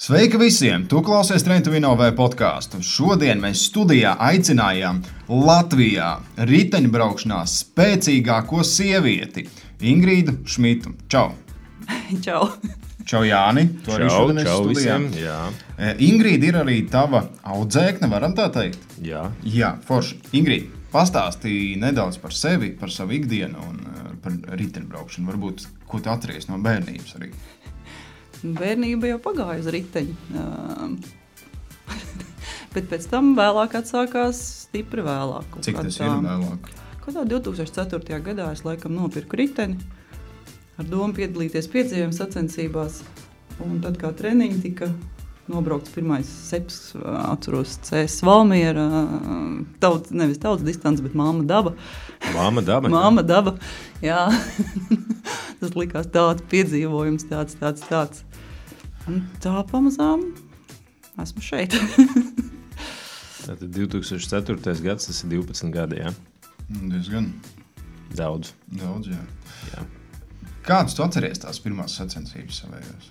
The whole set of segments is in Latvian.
Sveiki visiem! Tu klausies Train to Win OV podcastu. Šodien mēs studijā aicinājām Latvijā riteņbraukšanā spēcīgāko sievieti Ingrīdu Šmitu. Čau! Čau! Čau, Jāni! Tu arī šodien esi studijā. Visiem, jā. Ingrīda ir arī tava audzēkne, varam tā teikt? Jā. Jā, forši. Ingrīda, pastāstīja nedaudz par sevi, par savu ikdienu un par riteņbraukšanu. Varbūt, ko tu atceries no bērnības arī? Bērnība jau pagāja uz riteņu, bet pēc tam vēlāk atsākās stipri vēlāk. Cik tas ir vēlāk? Kādā 2004. gadā es laikam nopirku riteni ar domu piedalīties piedzīvojuma sacensībās. Un tad kā treniņi tika nobraukts pirmais seps, atceros CS Valmiera, nevis tautas distance, bet Māma Daba. Māma Daba? Māma Daba, jā. Tas likās tāds piedzīvojums, tāds. Un tā pamazām esmu šeit. Tātad 2004. gads, tas ir 12 gadi, jā? Diezgan. Daudz, jā. Jā. Kādus tu atceries tās pirmās sacensības savējos?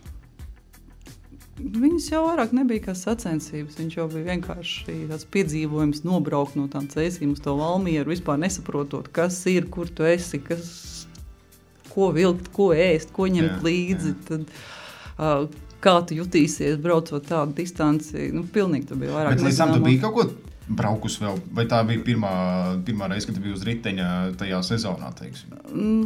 Viņas jau vairāk nebija kā sacensības. Viņš jau bija vienkārši tāds piedzīvojums nobraukt no tām cēsīm uz to Valmieru, vispār nesaprotot, kas ir, kur tu esi, ko vilkt, ko ēst, ko ņemt līdzi. Tad, kā tu jutīsies, braucot tādu distanci. Pilnīgi tu bija vairāk. Bet līdz tam tu biji kaut ko braukus vēl? Vai tā bija pirmā reize, kad tu biji uz riteņa tajā sezonā, teiksim?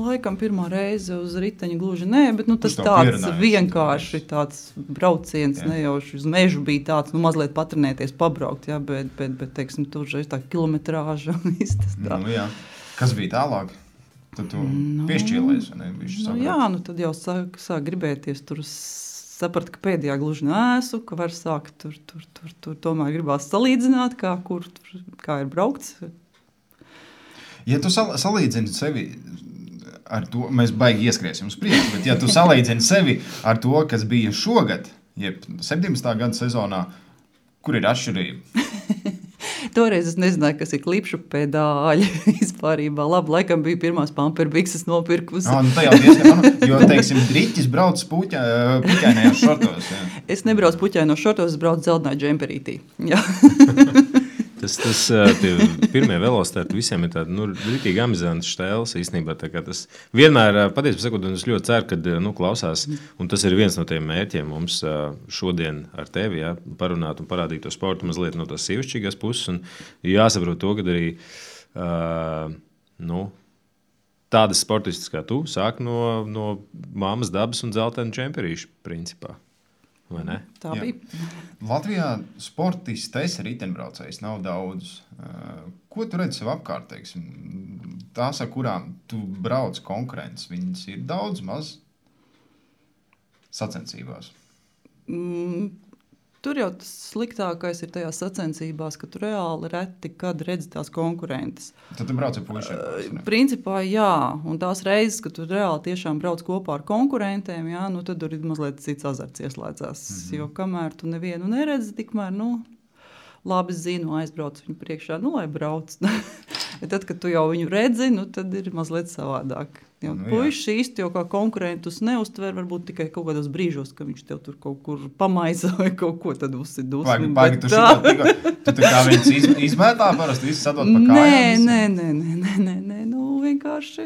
Laikam pirmā reize uz riteņa gluži nē, bet tas tāds vienkārši tāds brauciens, nejauši uz mežu bija tāds, mazliet patrenēties, pabraukt, jā, bet teiksim, tur tā kilometrāža un viss tas tā. Jā. Kas bija tālāk? Tad tu piešķīlēs, vai ne? Jā, tad jau sāk gribēties tur saprat, ka pēdējā gluži neesmu, ka var sākt tur tomēr gribās salīdzināt, kā ir braukts. Ja tu salīdzini sevi ar to, mēs baigi ieskriesim uz priekšu, bet ja tu salīdzini sevi ar to, kas bija šogad, jeb 17. gada sezonā, kur ir atšķirība? Toreiz es nezināju, kas ir klipšu pedāļi vispārībā. Labi, laikam bija pirmās pamperbikses nopirkus. Tā jau diezgan, jo, teiksim, driķis brauc puķainajos šortos. Jā. Es nebraucu puķainos šortos, es braucu dzeltenā džemperītī. Jā. Tie pirmie velosipēdi visiem ir tādi, ritīgi amizanti štēles īstenībā. Tas vienmēr, patiesībā sakot, es ļoti ceru, kad klausās, un tas ir viens no tiem mērķiem mums šodien ar tevi, parunāt un parādīt to sportu mazliet no tās sievišķīgās puses, un jāsaprot to, kad arī tādas sportistas kā tu sāk no Māmas Dabas un dzeltena džemperīša principā. Vai ne? Tā bija. Latvijā sportistes riteņbraucējs nav daudz. Ko tu redzi sev apkārt, teiksim? Tās, ar kurām tu brauc konkurences, viņas ir daudz maz sacensībās? Tur jau tas sliktākais ir tajās sacensībās, ka tu reāli reti, kad redzi tās konkurentes. Tad tu brauc ar puišiem? Principā jā, un tās reizes, kad tu reāli tiešām brauc kopā ar konkurentiem, jā, tad tur ir mazliet cits azarts ieslēdzās. Jo kamēr tu nevienu neredzi, tikmēr, labi zinu, aizbrauc viņu priekšā, lai brauc. Tad, kad tu jau viņu redzi, tad ir mazliet savādāk. Puiši īsti jau kā konkurentus neuztver, varbūt tikai kaut kādos brīžos, ka viņš tev tur kaut kur pamaisa vai kaut ko tad uzsidus. Paigi, tu tā kā viņus izmētā parasti, visu sadot pa kājām? Nē, vienkārši,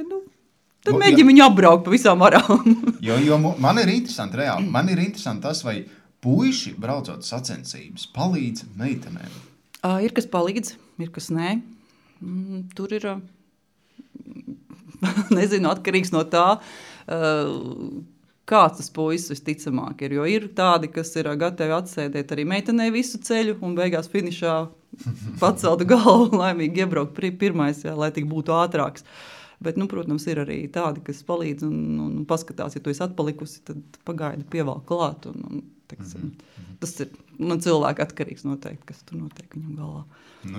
tad mēģini viņu apbraukt pa visām varām. Jo man ir interesanti, reāli, tas, vai puiši braucot sacensības palīdz meitenēm? Ir kas palīdz, ir kas nē. Tur ir, nezinu, atkarīgs no tā, kāds tas puisis visticamāk ir. Jo ir tādi, kas ir gatavi atsēdēt arī meitenei visu ceļu un beigās finišā paceltu galvu laimīgi iebraukt pirmais, lai tik būtu ātrāks. Bet, protams, ir arī tādi, kas palīdz un paskatās, ja tu esi atpalikusi, tad pagaidi pievalk klāt. Tas ir cilvēka atkarīgs noteikti, kas tur notiek viņam galvā.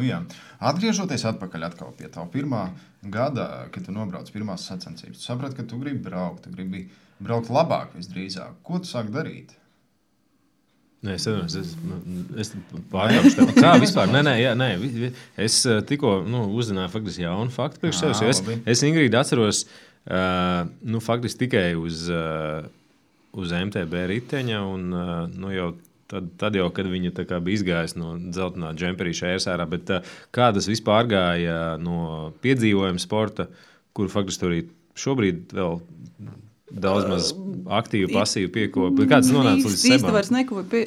Jā. Atgriežoties atpakaļ atkal pie tā pirmā gada, kad tu nobrauc pirmās sacensības, tu saprati, ka tu gribi braukt labāk visdrīzāk. Ko tu sāki darīt? Nē, es pārkāpšu tev. Kā vispār? Nē. Es tikko uzzināju faktiski jaunu faktu priekš sevis. Es Ingrīdu atceros faktiski tikai uz MTB riteņa un jau tad jau, kad viņa tā kā bija izgājusi no dzeltenā džemperīša ērsārā, bet kā tas vispār gāja no piedzīvojuma sporta, kur faktiski arī šobrīd vēl daudz maz aktīvi, pasīvi piekopi. Kāds nonāca līdz sebām? Īsti vairs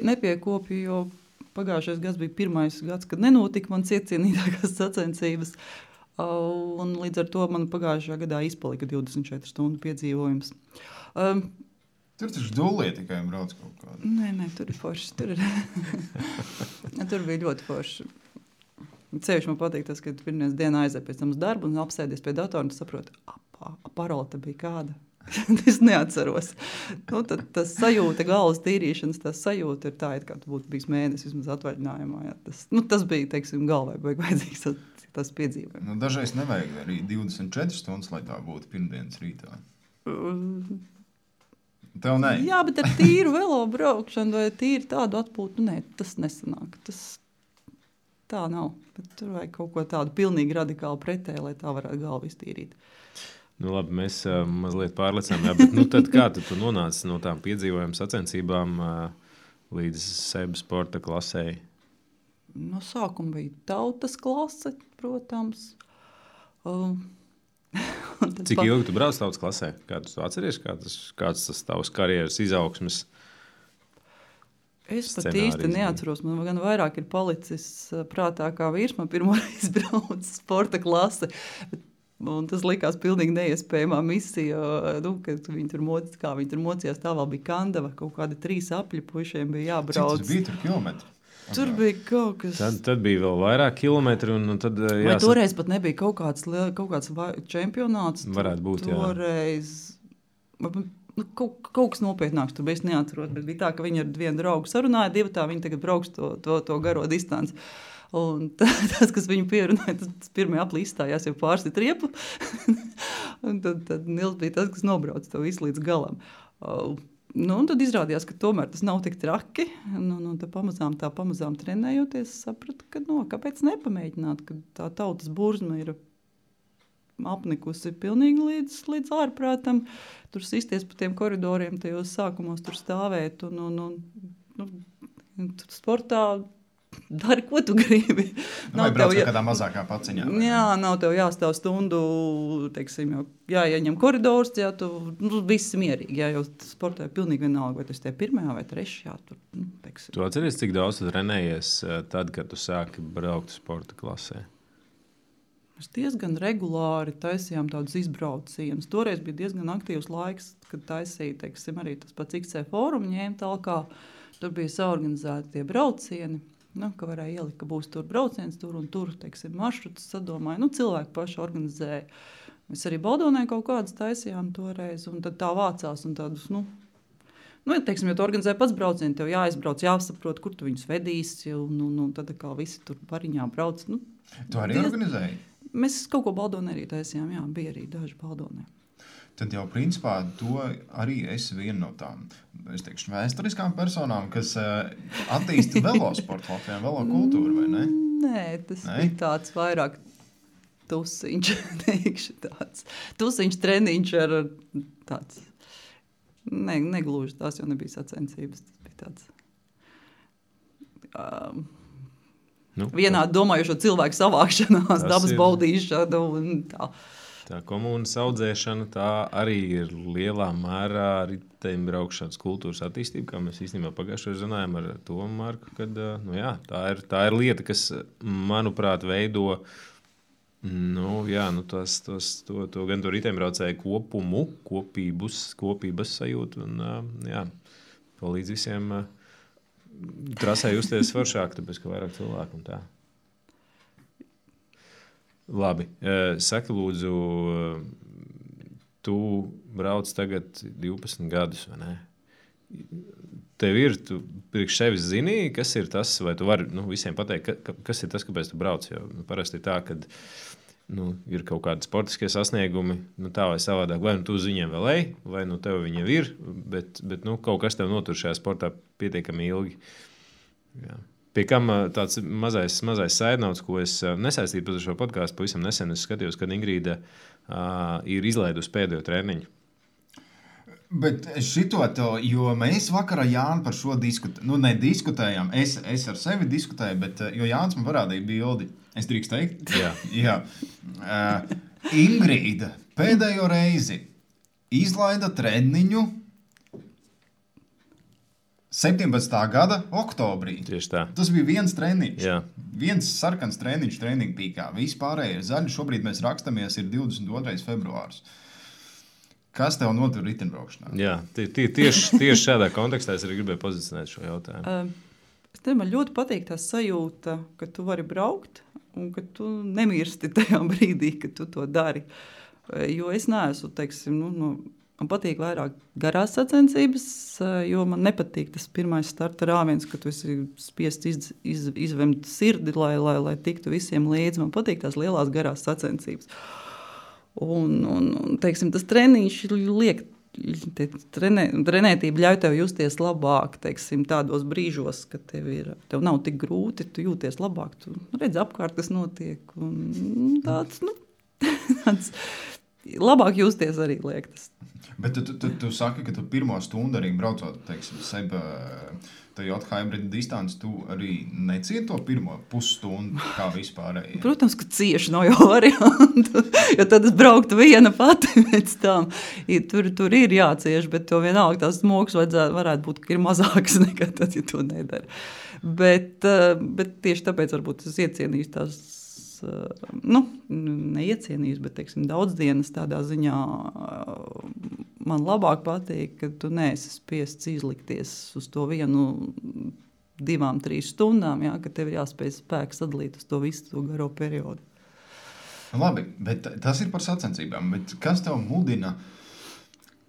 nepiekopju, jo pagājušais gads bija pirmais gads, kad nenotika man iecienītākās sacensības. Un līdz ar to man pagājušajā gadā izpalika 24 stundu piedzīvojums. Tur taču dullie tikai brauc kaut kādu. Nē, tur ir forši. Tur bija ļoti forši. Cevišķi man patīk tas, ka pirmdienas dienā aiziet pēc tam uz darbu un apsēdies pie datora un saproti, parola te bija kāda. Es neatceros. Tas sajūta, galvas tīrīšanas, tas sajūta ir tā, kā tu būtu bijis mēnesis vismaz atvaļinājumā. Jā. Tas bija, teiksim, galvai vajadzīgs tas piedzīvojums. Dažreiz nevajag arī 24 stundas, lai tā būtu pirmdienas rītā. Tev ne? Jā, bet ar tīru velo braukšanu vai tīri tādu atpūtu, tas nesanāk. Tā nav. Bet tur vajag kaut ko tādu pilnīgi radikāli pretēji, lai tā varētu galvu iztīrīt. Labi, mēs mazliet pārlecām. Jā, bet tad kā tu nonāci no tām piedzīvojuma sacensībām līdz SEB sporta klasei? No sākuma bija tautas klase, protams. Cik ilgi tu brauc tautas klasē? Kā tu atceries, kāds tas tavs karjeras izaugsmes Es pat īsti neatceros. Man gan vairāk ir palicis prātā kā vīrs. Man pirmoreiz brauc sporta klase. Un tas likās pilnīgi neiespējamā misija, kad viņi tur mocījās. Tā vēl bija Kandava, kaut kādi 3 apļi puišiem bija jābrauc. Cik tas bija tur kilometri? Tur bija kaut kas... Tad bija vēl vairāk kilometri. Tad, vai toreiz pat nebija kaut kāds čempionāts? Varētu būt, toreiz... Kaut kas nopietnāks tur bija, es neatceros, bet bija tā, ka viņi ar vienu draugu sarunāja, viņi tagad brauks to garo distanci. Un tas, kas viņu pierunāja, tas pirmie aplī izstājās jau pārsit riepu. Un tad Nils bija tas, kas nobrauc to visu līdz galam. Un tad izrādījās, ka tomēr tas nav tik traki. Tā pamazām trenējoties, sapratu, ka kāpēc nepamēģināt, ka tā tautas burzma ir apnikusi pilnīgi līdz ārprātam. Tur sisties pa tiem koridoriem, tajos sākumos tur stāvēt. Tur sportā dari, ko tu gribi. Vai brauc kādā mazākā paciņā? Jā, nav tev jāstāv stundu, teiksim, jāieņem koridors, tu visi mierīgi. Jā, jo sportā ir pilnīgi vienalga, vai tu esi pirmajā vai trešajā. Tu atceries, cik daudz tu trenējies tad, kad tu sāki braukt sporta klasē? Mēs diezgan regulāri taisījām tādus izbraucienus. Toreiz bija diezgan aktīvs laiks, kad taisīja, teiksim, arī tas pats XC fórumu ņēma talkā. Tur bija saorganizēti tie braucieni. Ka varēja ielikt, ka būs tur brauciens, tur un tur, teiksim, maršrutus sadomāja. Cilvēki paši organizēja. Mēs arī Baldonē kaut kādas taisījām toreiz, un tad tā vācās un tādus, teiksim, ja tu organizē pats braucienu, tev jāizbrauc, jāsaprot, kur tu viņus vedīsi, un tad kā visi tur pariņā brauc. Tu arī organizēji? Mēs kaut ko Baldonē arī taisījām, jā, bija arī daži Baldonē. Tad jau, principā, tu arī esi viena no tām, es teikšu, vēsturiskām personām, kas attīsta velosportu Latvijā, velokultūru, vai ne? Nē, tas bija tāds vairāk tusiņš, teikšu tāds. Tusiņš treniņš ar tāds, negluži, tās jau nebija sacensības, tas bija tāds... vienādi domājušo cilvēku savākšanās, dabas baudīšana un tā. Tā komunas audzēšana, tā arī ir lielā mērā riteņbraukšanas kultūras attīstība, kā mēs īstenībā pagājušajā runājām ar Tomu Marku, kad tā ir lieta, kas, manuprāt, veido to gan to riteņbraucēju kopumu, kopības sajūtu un palīdz visiem trasē justies foršāk, tāpēc, ka vairāk cilvēku un tā. Labi, saki lūdzu, tu brauc tagad 12 gadus, vai ne? Tev ir, tu priekš sevis zini, kas ir tas, vai tu vari visiem pateikt, kas ir tas, kāpēc tu brauc, jo parasti ir tā, kad ir kaut kādi sportiskie sasniegumi, tā vai savādāk, vai tu uz viņiem vēl ej, vai tev viņi jau ir, bet kaut kas tev notur šajā sportā pietiekami ilgi. Jā. Pie kam tāds mazais saidnauts, ko es nesaistīju par šo podcastu, pavisam nesen es skatījos, kad Ingrīda ir izlaidusi pēdējo treniņu. Bet šito to, jo mēs vakar ar Jānu par šo diskutējām, nu nediskutējām, es ar sevi diskutēju, bet jo Jānis man parādīja bildi, es drīkst teikt? Jā. Ingrīda pēdējo reizi izlaida treniņu 17. gada oktobrī. Tieši tā. Tas bija viens treniņš. Jā. Viens sarkans treniņš treniņu pīkā. Vispārējie zaļi. Šobrīd mēs rakstamies, ir 22. februārs. Kas tev notur riteņbraukšanā? Jā, tieši šādā kontekstā es arī gribēju pozicionēt šo jautājumu. Man ļoti patīk tā sajūta, ka tu vari braukt un ka tu nemirsti tajā brīdī, kad tu to dari. Jo es neesmu, teiksim, man patīk vairāk garās sacensības, jo man nepatīk tas pirmais starta rāviens, ka tu esi spiests izvemt sirdi, lai tiktu visiem līdzi. Man patīk tās lielās garās sacensības. Un teiksim, tas treniņš liek, trenētība ļauj tev justies labāk, teiksim, tādos brīžos, kad tev nav tik grūti, tu jūties labāk, tu redzi apkārt, kas notiek, un tāds labāk justies arī liek tas. Bet tu saki, ka tu pirmo stundu arī braucot, teiksim, Toyota Hybrid distanci, tu arī necieti to pirmo pusstundu kā vispārēji? Protams, ka cieši nav jau variantu, jo tad es brauktu viena pati pēc tam. Tur ir jācieš, bet to vienalga tās smogs varētu būt, ka ir mazāks nekā tad, ja to nedara. Bet tieši tāpēc varbūt es iecienīšu tās, neiecienīšu, bet, teiksim, daudz dienas tādā ziņā man labāk patīk, ka tu neesi spiests izlikties uz to 1, 2, 3 stundām, jā, ka tev ir jāspēj spēks sadalīt uz to visu to garo periodu. Labi, bet tas ir par sacensībām, bet kas tev mudina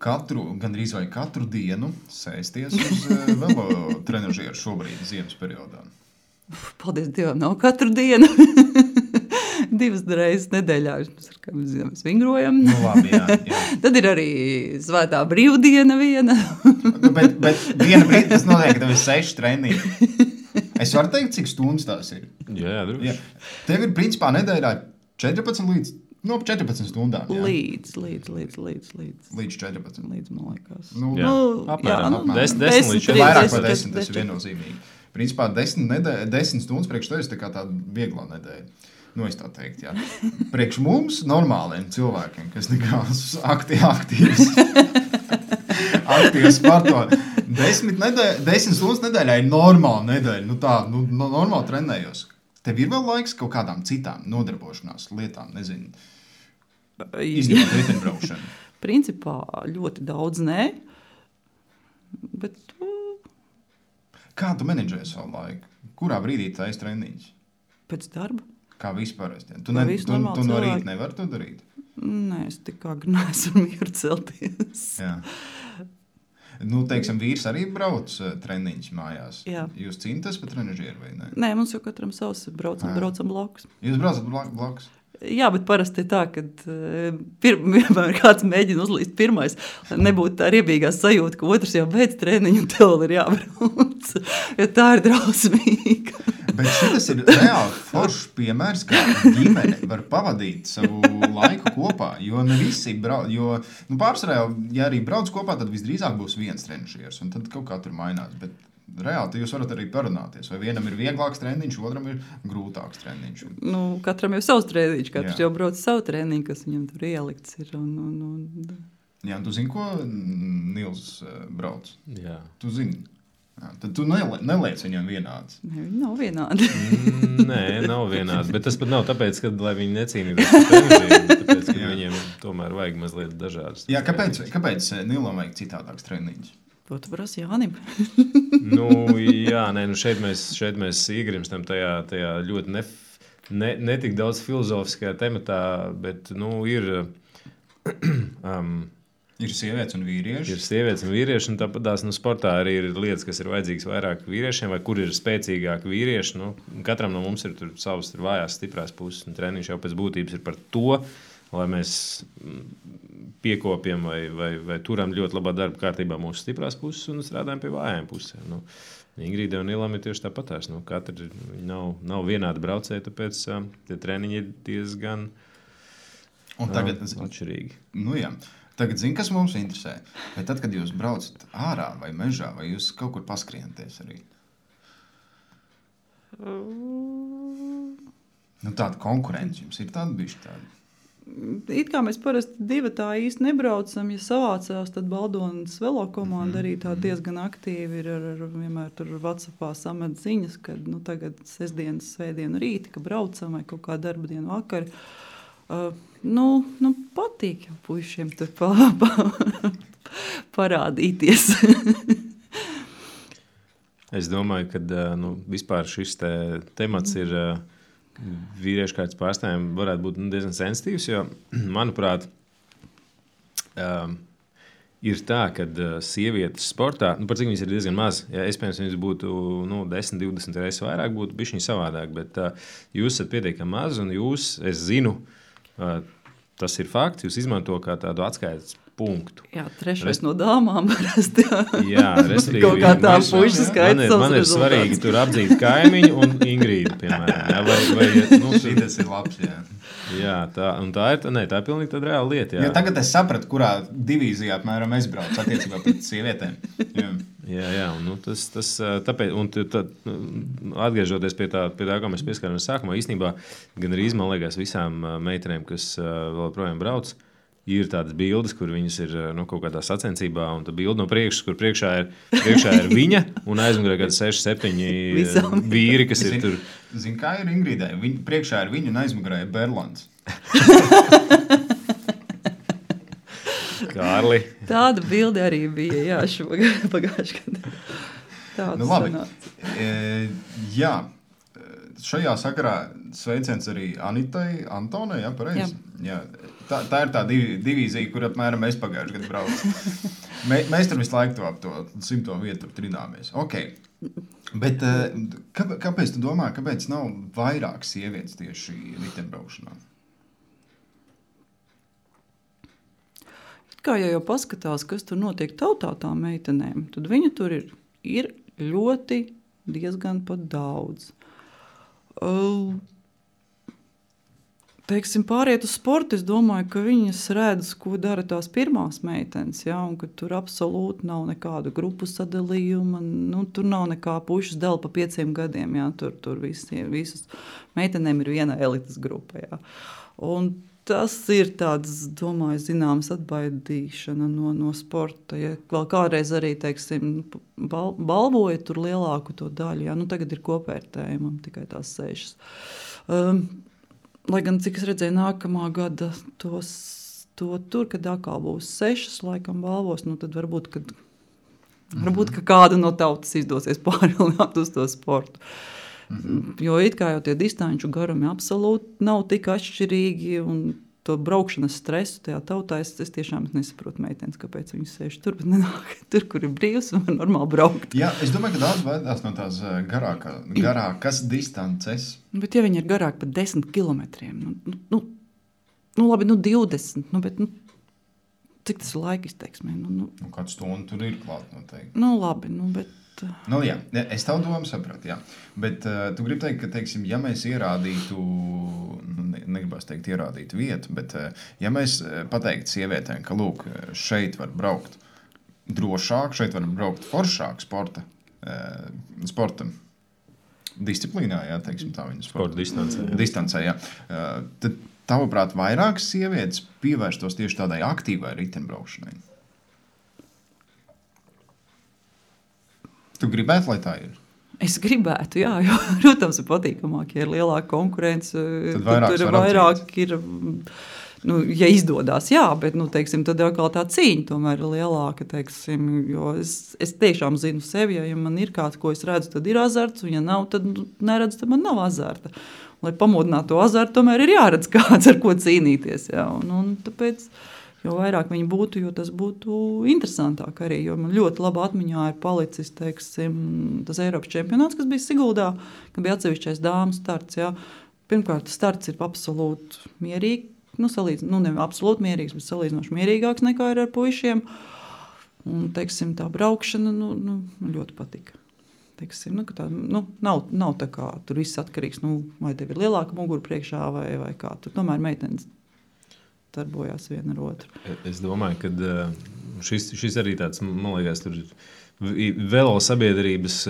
gandrīz vai katru dienu sēsties uz velo trenažieru šobrīd ziemas periodā? Paldies Dievam, nav katru dienu. 2 reizes nedēļā mēs vingrojam. Nu, labi, jā. Tad ir arī svētā brīvdiena viena. bet viena brīdi tas notiek, ka tev ir 6 treniņi. Es varu teikt, cik stundas tās ir? Jā, droši. Jā. Tev ir principā nedēļā 14 līdz 14 stundām. Jā. Līdz 14. Līdz, man liekas. Apmēram. 10 līdz 14. Vairāk par 10, tas ir viennozīmīgi. Principā 10 stundas priekš tevis tā kā tāda vieglā nedēļa. Es tā teikt, jā. Priekš mums, normāliem cilvēkiem, kas nekās aktīvs sporto, 10 stundas nedēļā ir normāla nedēļa. Normāli trenējos. Tev ir vēl laiks kaut kādām citām nodarbošanās lietām, nezinu, izņemot riteņbraukšanu? Principā ļoti daudz nē, bet... Kā tu menedžēji savu laiku? Kurā brīdī tā esi treniņš? Pēc darba. Kā vispār? Tu no rīta nevari to darīt? Nē, es tik agri neesmu mieru celties. Jā. Teiksim, vīrs arī brauc treniņš mājās. Jā. Jūs cīnāties par trenažieru vai ne? Nē, mums jau katram savs braucam blakus. Jūs braucat blakus? Jā, bet parasti ir tā, ka vienmēr kāds mēģina uzlīst pirmais, lai nebūtu tā riebīgā sajūta, ka otrs jau beidz treniņu un tev ir jābrauc, jo tā ir drausmīga. Bet šis ir reāli foršs piemērs, kā ģimene var pavadīt savu laiku kopā, jo ne visi pārsvarā, ja arī brauc kopā, tad visdrīzāk būs viens trenažieris, un tad kaut kā tur mainās, bet reāli jūs varat arī parunāties, vai vienam ir vieglāks treniņš, otram ir grūtāks treniņš. Katram ir savs treniņš, katrs jau brauc savu treniņu, kas viņam tur ielikts ir. Jā, un tu zini, ko Nils brauc? Jā. Tu zini. Jā, tad tu neliec viņam vienāds. Ne, viņi nav vienādi. Nē, nav vienādi, bet tas pat nav tāpēc, ka, lai viņi necīnītos par treniņiem, tāpēc, ka viņiem tomēr vajag mazliet dažādas. Jā, kāpēc Nilam vajag citādāks treniņš? To tu prasi Jānim. Šeit mēs iegrimstam tajā ļoti netik daudz filozofiskajā tematā, bet ir sievietes un vīrieši. Ir sievietes un vīrieši, un tāpatās sportā arī ir lietas, kas ir vajadzīgas vairāk vīriešiem, vai kur ir spēcīgāki vīrieši. Katram no mums ir savas vājās, stiprās puses, un treniņš jau pēc būtības ir par to, lai mēs piekopjam vai turam ļoti labā darba kārtībā mūsu stiprās puses un strādājam pie vājām pusēm. Ingrīda un Nilam ir tieši tāpatās. Katra nav vienāda braucēja, tāpēc tie treniņi ir diezgan atšķirīgi. Jā. Tagad zinu, kas mums interesē. Vai tad, kad jūs braucat ārā vai mežā, vai jūs kaut kur paskrienties arī? Tāda konkurence jums ir tāda bišķi tāda? It kā mēs parasti divi tā īsti nebraucam, ja savācās, tad Baldonas velo komanda arī tā diezgan aktīvi ir vienmēr tur WhatsAppā samet ziņas, kad tagad sestdienas, svētdienu rīti, ka braucam vai kaut kā darba dienu vakari. Patīk jau puišiem tur parādīties. Es domāju, ka vispār šis temats ir vīriešu kārtas pārstāvjiem varētu būt diezgan sensitīvs, jo, manuprāt, ir tā, ka sievietes sportā, par cik viņas ir diezgan maz, ja iespējams viņas būtu 10, 20 reizes vairāk, būtu bišķiņ savādāk, bet jūs esat pietiekami maz un jūs, es zinu, tas ir fakts, jūs izmanto kā tādu atskaites punktu. Jā, trešais no dāmām parasti. Jā, respektīvi. Kaut kā tā puiša skaits. Man ir svarīgi tur apdzīt kaimiņu un Ingrīdu, piemēram. Šis ir labs, jā. Jā, tā ir pilnīgi tāda reāla lieta. Jā, tagad es sapratu, kurā divīzijā apmēram es braucu attiecībā pret sievietēm. Jā, un tāpēc, atgriežoties pie tā, kā mēs pieskārāmies sākumā, īstenībā gan arī, man liekas, visām meitenēm, kas vēl projām brauc, ir tādas bildes, kur viņas ir kaut kādā sacensībā, un tā bilde no priekšas, kur priekšā ir viņa, un aizmugurē kādi 6-7 vīri, kas ir tur. Zini, kā ir Ingrīdai? Priekšā ir viņa, un aizmugurē ir Berlands. Kārli. Tāda bilde arī bija, jā, pagājuši gadu. Tāda labi. Jā. Šajā sakarā sveiciens arī Anitai Antonai, jā, pareizi? Jā. Tā ir tā divīzija, kur apmēram mēs pagājuši gadu braucu. Mēs tur visu laiku ap to 100. vietu trināmies. Okay. Bet kāpēc tu domā, kāpēc nav vairāk sievietes tieši riteņbraukšanā? Kā jau paskatās, kas tur notiek tautā tām meitenēm, tad viņu tur ir ļoti diezgan pat daudz. Teiksim, pāriet uz sportu, es domāju, ka viņas redz, ko dara tās pirmās meitenes, ja, un ka tur absolūti nav nekāda grupu sadalījuma, tur nav nekā pušas dēl pa 5 gadiem, ja, tur visas meitenēm ir viena elites grupa, ja. Un tas ir tāds, domāju, zināms atbaidīšana no sporta, ja vēl kādreiz arī, teiksim, balvoja tur lielāku to daļu, ja, tagad ir kopvērtējumam tikai tās 6. Lai gan, cik es redzēju, nākamā gada to tur, kad atkal būs 6, laikam balvos, tad varbūt, ka kāda no tautas izdosies pārvilināt uz to sportu. Jo it kā jau tie distanču garumi absolūti nav tik atšķirīgi, un to braukšanas stresu tajā tautā es tiešām nesaprotu meitenes, kāpēc viņas sēž tur, bet nenāk tur, kur ir brīvs un var normāli braukt. Jā, es domāju, ka daudz vairās no tās garākas distances. Bet ja viņi ir garāk par 10 kilometriem, labi, 20, bet cik tas ir laika izteiksmē? Kādu stundu tur ir klāt noteikti. Labi, bet... Jā, es tavu domu sapratu, jā. Bet tu gribi teikt, ka, teiksim, ja mēs ierādītu, negribās teikt ierādītu vietu, bet ja mēs pateiktu sievietēm, ka, lūk, šeit var braukt drošāk, šeit var braukt foršāk sporta disciplīnā, jā, teiksim tā viņa sporta distancē, jā. Tad, tavuprāt, vairākas sievietes pievērstos tieši tādai aktīvai riteņbraukšanai? Tu gribētu, lai tā ir? Es gribētu, jā, jo, protams, ir patīkamāk, ja ir lielāka konkurence, tad tur vairāk ir, ja izdodās, jā, bet, teiksim, tad jau kā tā cīņa tomēr ir lielāka, teiksim, jo es tiešām zinu sevi, ja man ir kāds, ko es redzu, tad ir azarts, un ja nav, tad neredzu, tad man nav azarta. Lai pamodinātu to azartu, tomēr ir jāredz kāds, ar ko cīnīties, jā, un tāpēc... Jo vairāk viņi būtu, jo tas būtu interesantāk arī, jo man ļoti laba atmiņā ir palicis, teiksim, tas Eiropas čempionāts, kas bija Siguldā, ka bija atsevišķais dāmas starts, jā. Pirmkārt, starts ir absolūti mierīgi, ne absolūti mierīgs, bet salīdzinoši mierīgāks nekā ir ar puišiem, un, teiksim, tā braukšana, ļoti patika. Teiksim, ka tā, nav tā kā, tur viss atkarīgs, vai tev ir lielāka mugura priekšā, vai kā, tur tomēr meitenes. darbojās viena ar otru. Es domāju, ka šis arī tāds, man liekas, tur velo sabiedrības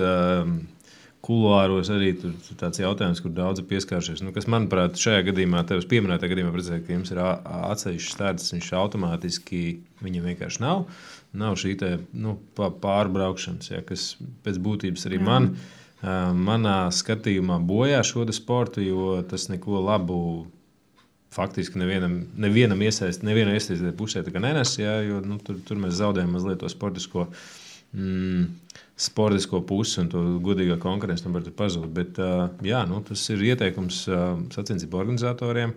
kuluāros arī tur tāds jautājums, kur daudzi pieskāršies. Nu, kas, manuprāt, šajā gadījumā, tevis pieminētā gadījumā, redzēt, ka jums ir atsevišķs starts, viņš automātiski, viņam vienkārši nav. Nav šī te, pārbraukšanas, ja, kas pēc būtības arī manā skatījumā bojā šo sportu, jo tas neko labu faktiski nevienam iesaistītai pusē nenes, ja, jo tur mēs zaudējam mazliet to sportisko pusi un to godīgā konkurenci var pazūt. Bet tas ir ieteikums sacensību organizatoriem.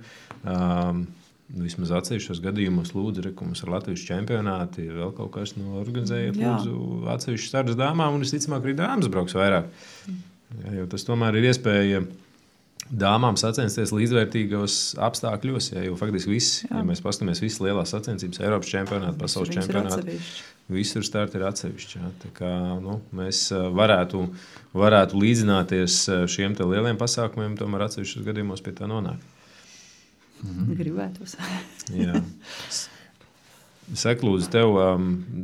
Vismaz atsevišķos gadījumos lūdzu, ka mums ir Latvijas čempionāti, vēl kaut kas organizējiet, lūdzu, atsevišķus startus dāmām, un visticamāk arī dāmas brauks vairāk. Ja, jo tas tomēr ir iespēja dāmām sacensties līdzvērtīgos apstākļos, jo faktiski visi, ja mēs paskatāmies visas lielās sacensības, Eiropas čempionāti, pasaules čempionāti, visur starti ir atsevišķi. Ja. Tā kā mēs varētu līdzināties šiem te lieliem pasākumiem, tomēr atsevišķos gadījumos pie tā nonāk. Gribētos. Jā. Saka, lūdzu, tev,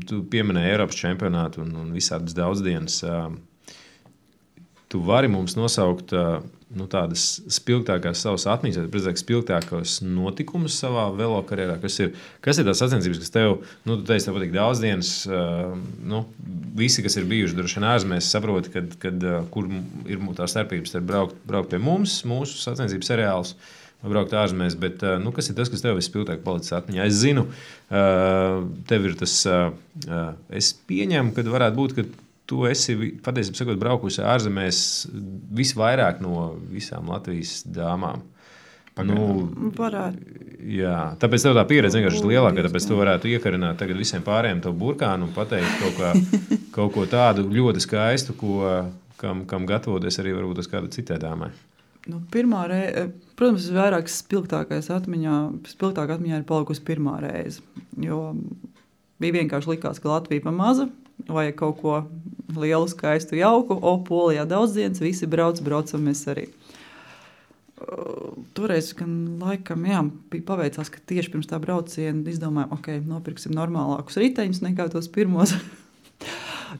tu pieminēji Eiropas čempionātu un visādas daudzdienas. Tu vari mums nosaukt tādas spilgtākās savas atmiņas, vai spilgtākos notikumus savā velo karjerā? Kas ir tās sacensības, kas tev, tu teici, tev patīk daudzdienas, visi, kas ir bijuši droši vien ārzemēs, saproti, kur ir tā starpības starp braukt pie mums, mūsu sacensības seriālus, braukt ārzemēs, bet kas ir tas, kas tev vispilgtāk palicis atmiņā? Es zinu, tev ir tas, es pieņemu, ka varētu būt, ka tu esi, patiesībā sakot, braukusi ārzemēs visvairāk no visām Latvijas dāmām. Varētu. Jā, tāpēc tev tā pieredze vienkārši ir lielāka, tāpēc tu varētu iekarināt tagad visiem pārējiem tavu burkānu un pateikt kaut ko tādu ļoti skaistu, kam gatavoties arī varbūt uz kādu citai dāmai. Pirmā reize, protams, vairāk spilgtākā atmiņā ir palikusi pirmā reize, jo bija vienkārši likās, ka Latvija pa maza, vajag kaut ko lielu, skaistu, jauku, Polijā daudzdienas, visi braucam mēs arī. Toreiz, gan laikam, bija paveicās, ka tieši pirms tā brauciena izdomājām, nopirksim normālākus riteņus nekā tos pirmos.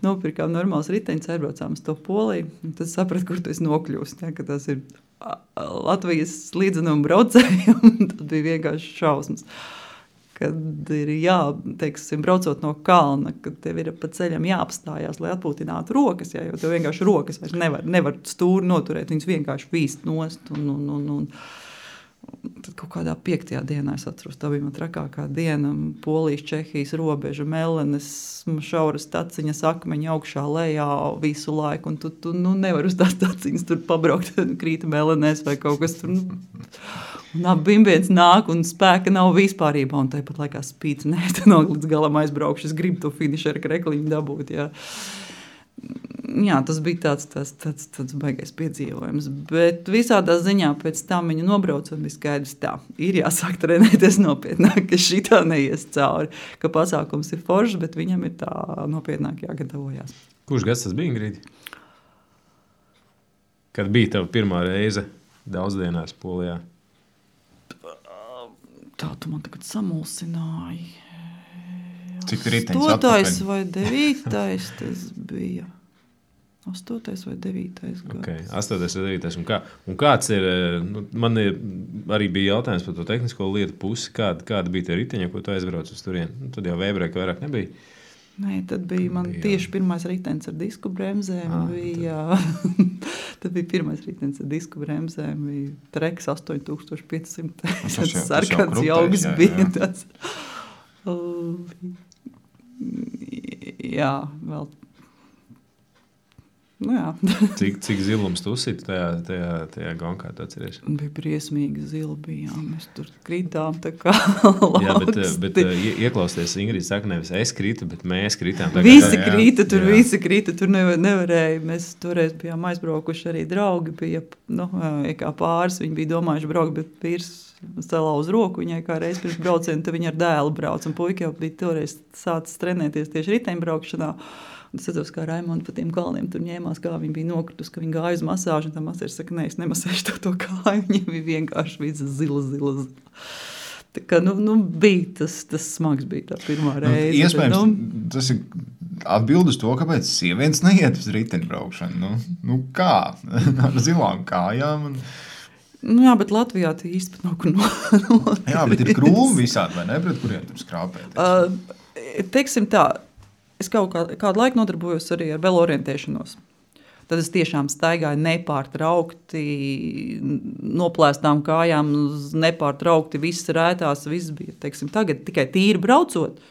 Nopirkām normālus riteņus, aizbraucām uz to Poliju, un tad sapratu, kur tu esi nokļūst, ka tas ir Latvijas līdzenuma braucējiem, tas bija vienkārši šausmas. Kad ir braucot no kalna, kad tev ir pa ceļam jāapstājās, lai atpūtinātu rokas, jo tev vienkārši rokas vairs nevar stūri noturēt, viņas vienkārši vīst nost. Un tad kaut kādā 5. dienā, es atceros, tā bija man trakākā diena, Polijas, Čehijas robeža, melenes, šauras taciņas, akmeņi augšā, lejā visu laiku, un tu nevar uz tās taciņas tur pabraukt, krīta melenēs vai kaut kas tur. Un bimbiens nāk un spēka nav vispārībā, un tāpat laikā spīts, tad līdz galam aizbraukšu, es gribu to finišeru krekliņu dabūt, Jā, tas bija tāds baigais piedzīvojums, bet visādā ziņā pēc tam viņu nobraucot bija skaidrs tā, ir jāsāk trenēties nopietnāk, ka šitā neies cauri, ka pasākums ir foršs, bet viņam ir tā nopietnāk jāgatavojās. Kurš gads tas bija, Ingrīdi? Kad bija tava pirmā reize daudzdienās Polijā? Tā tu man tagad samulsināji. Cik riteņus atpakaļ? 8. vai 9. tas bija. 8. vai 9. gads. Okay, 8. vai 9. Un kāds ir, man arī bija jautājums par to tehnisko lietu pusi, kāda bija tie riteņi, ko tu aizbrauc uz turieni? Tad jau V-breka vairāk nebija. Nē, tad bija man tieši pirmais ritenis ar disku bremzēm. Tad bija pirmais ritenis ar disku bremzēm. Bija Treks 8500. Tas sarkans jauks bija. Tas. Jā, vēl. Cik zilums tu uzsiti tajā gonkā, tu atceries? Bija briesmīgi zila bijām, mēs tur kritām tā kā bet ieklausties, Ingrīda saka, nevis es kritu, bet mēs kritām. Visi krita, tur nevarēja. Mēs toreiz bijām aizbraukuši, arī draugi bija, kā pāris, viņi bija domājuši braukt, bet vīrs salauz roku viņai kā reiz pirms braucienu, tad viņa ar dēlu brauc, un puika jau bija toreiz sācis trenēties tieši riteņbraukšanā. Es atceros, kā Raimonda pa tiem kalniem tur ņēmās, kā viņa bija nokritus, ka viņa gāja uz masāžu, un tā masērs saka, nē, es nemasēšu to kāju, viņa bija vienkārši visa zila. Tā kā, bija tas smags bija tā pirmā reize. Iespējams, tas ir atbild uz to, kāpēc sievietes neiet uz riteņbraukšanu. Kā? Ar zilām kājām. Jā, bet Latvijā tie īsti nav kur Jā, bet ir krūmi visādi, vai ne, pret kuriem tur skrāpēt? Teiksim tā, es kādu laiku nodarbojos arī ar velorientēšanos. Tad es tiešām staigāju nepārtraukti, noplēstām kājām, nepārtraukti, viss rētās, viss bija. Teiksim, tagad tikai tīri braucot.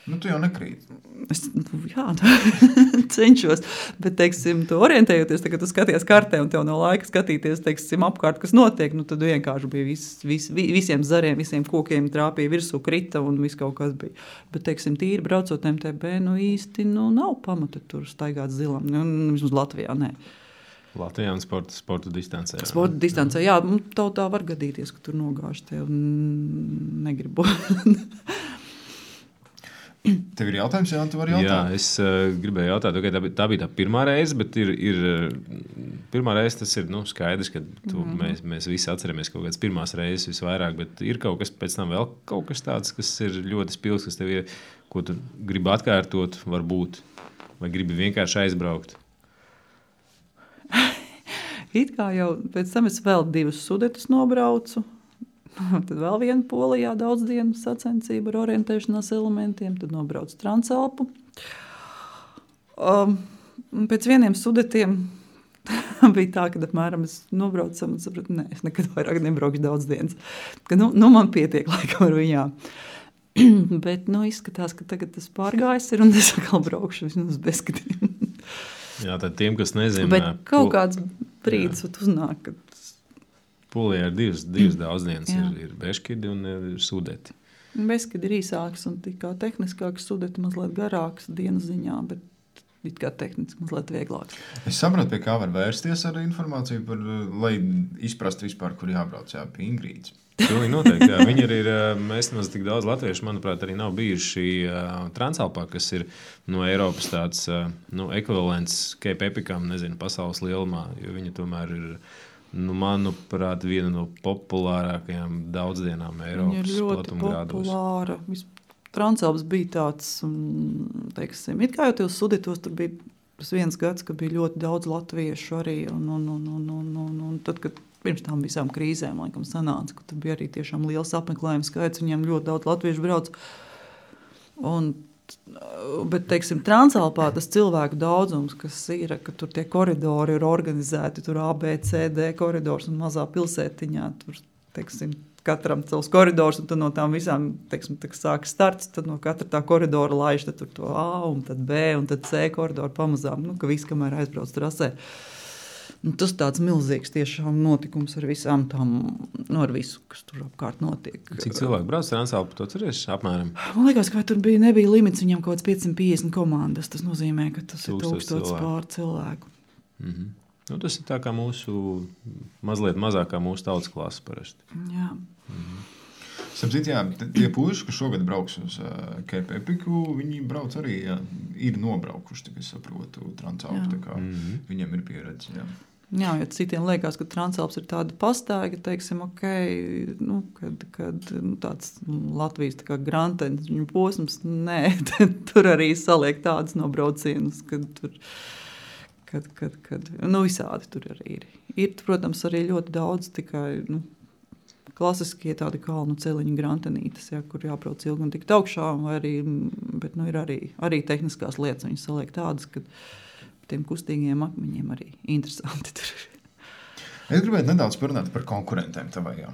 Tu jau nekrīt. Jā, cenšos, bet, teiksim, tu orientējoties, kad tu skaties kartē un tev nav laika skatīties, teiksim, apkārt, kas notiek, tad vienkārši bija visiem zariem, visiem kokiem trāpīja virsū, krita un viss kaut kas bija. Bet, teiksim, tīri braucot MTB, īsti nav pamata tur staigāt zilam, vismaz Latvijā, nē. Latvijā un sporta distancē. Sporta distancē, jā, tā var gadīties, ka tur nogāž tev un negribu. Tev ir jautājums, jā, tu vari jautāt? Jā, es gribēju jautāt, okay, tā bija tā pirmā reize, bet pirmā reize tas ir skaidrs, ka mēs visi atceramies kaut kādas pirmās reizes visvairāk, bet ir kaut kas pēc tam vēl kaut kas tāds, kas ir ļoti spilgs, kas tev ir, ko tu gribi atkārtot, varbūt, vai gribi vienkārši aizbraukt? It kā jau pēc tam es vēl 2 Sudetus nobraucu. Tad vēl viena Polijā daudz dienu sacensība ar orientēšanās elementiem, tad nobrauc Transalpu. Pēc vieniem Sudetiem bija tā, ka apmēram es nobraucu un sapratu, es nekad vairāk nebraukšu daudz dienas. Ka, man pietiek laikam ar viņām. Bet izskatās, ka tagad tas pārgājis ir un es atkal braukšu vismaz bezskatiem. Jā, tad tiem, kas nezina... Bet kaut kāds brīdis uznāk, kad Polijā ir divas daudzdienas, ir Beškidi un ir Sudeti. Beškidi ir īsāks un tikā tehniskāks, Sudeti mazliet garāks dienas ziņā, bet it kā tehniski mazliet vieglāks. Es saprotu, pie kā var vērsties ar informāciju, lai izprastu vispār, kur jābrauc, pie Ingrīdas. Pilnīgi noteikti, jā. Viņi arī ir, mēs nemaz tik daudz latviešu, manuprāt, arī nav bijuši Transalpā, kas ir no Eiropas tāds ekvivalents Cape Epicam, nezinu, pasaules lielumā, jo viņi tomēr ir... manuprāt, viena no populārākajām daudzdienām Eiropas platumgrādos. Viņa ir ļoti populāra. Transalps bija tāds, teiksim, it kā jau tos Sudetos, tur bija tas viens gads, ka bija ļoti daudz latviešu arī, un tad, kad pirms tām visām krīzēm, laikam, sanāca, ka tur bija arī tiešām liels apmeklējums skaits, viņiem ļoti daudz latviešu brauc. Bet, teiksim, Transalpā tas cilvēku daudzums, kas ir, ka tur tie koridori ir organizēti, tur A, B, C, D koridors un mazā pilsētiņā, tur, teiksim, katram savs koridors, un tad no tām visām, teiksim, sāk starts, tad no katra tā koridora laiž, tad tur to A, un tad B, un tad C koridoru pamazām, ka viss, kamēr aizbrauc trasē. Tas tāds milzīgs tiešām notikums ar visām tām, ar visu, kas tur apkārt notiek. Cik cilvēku brauc Transalpu, to ceries apmēram? Man liekas, ka tur nebija limits, viņam kaut kāds 550 komandas. Tas nozīmē, ka tas ir 1000 pār cilvēku. Tas ir tā kā mūsu, mazliet mazākā mūsu tautas klasa parasti. Jā. Sapcīt, jā, tie puiši, kas šogad brauks uz Cape Epicu, viņi brauc arī, ir nobraukuši, tā kā es saprotu, Transalpu, tā kā viņiem ir pieredze, jā. Jā, jo citiem liekas, ka Transalps ir tāda pastaiga, teiksim, kad tāds Latvijas tā kā grantenis viņu posms, nē, tur arī saliek tādas nobraucienus, kad tur, visādi tur arī ir. Ir, protams, arī ļoti daudz tikai, klasiskie tādi kalnu celiņu grantenītes, kur jābrauc ilgi un tikt augšā, bet ir arī tehniskās lietas, viņas saliek tādas, kad tiem kustīgiem akmeņiem arī interesanti tur. Es gribētu nedaudz parunāt par konkurentiem tavajām.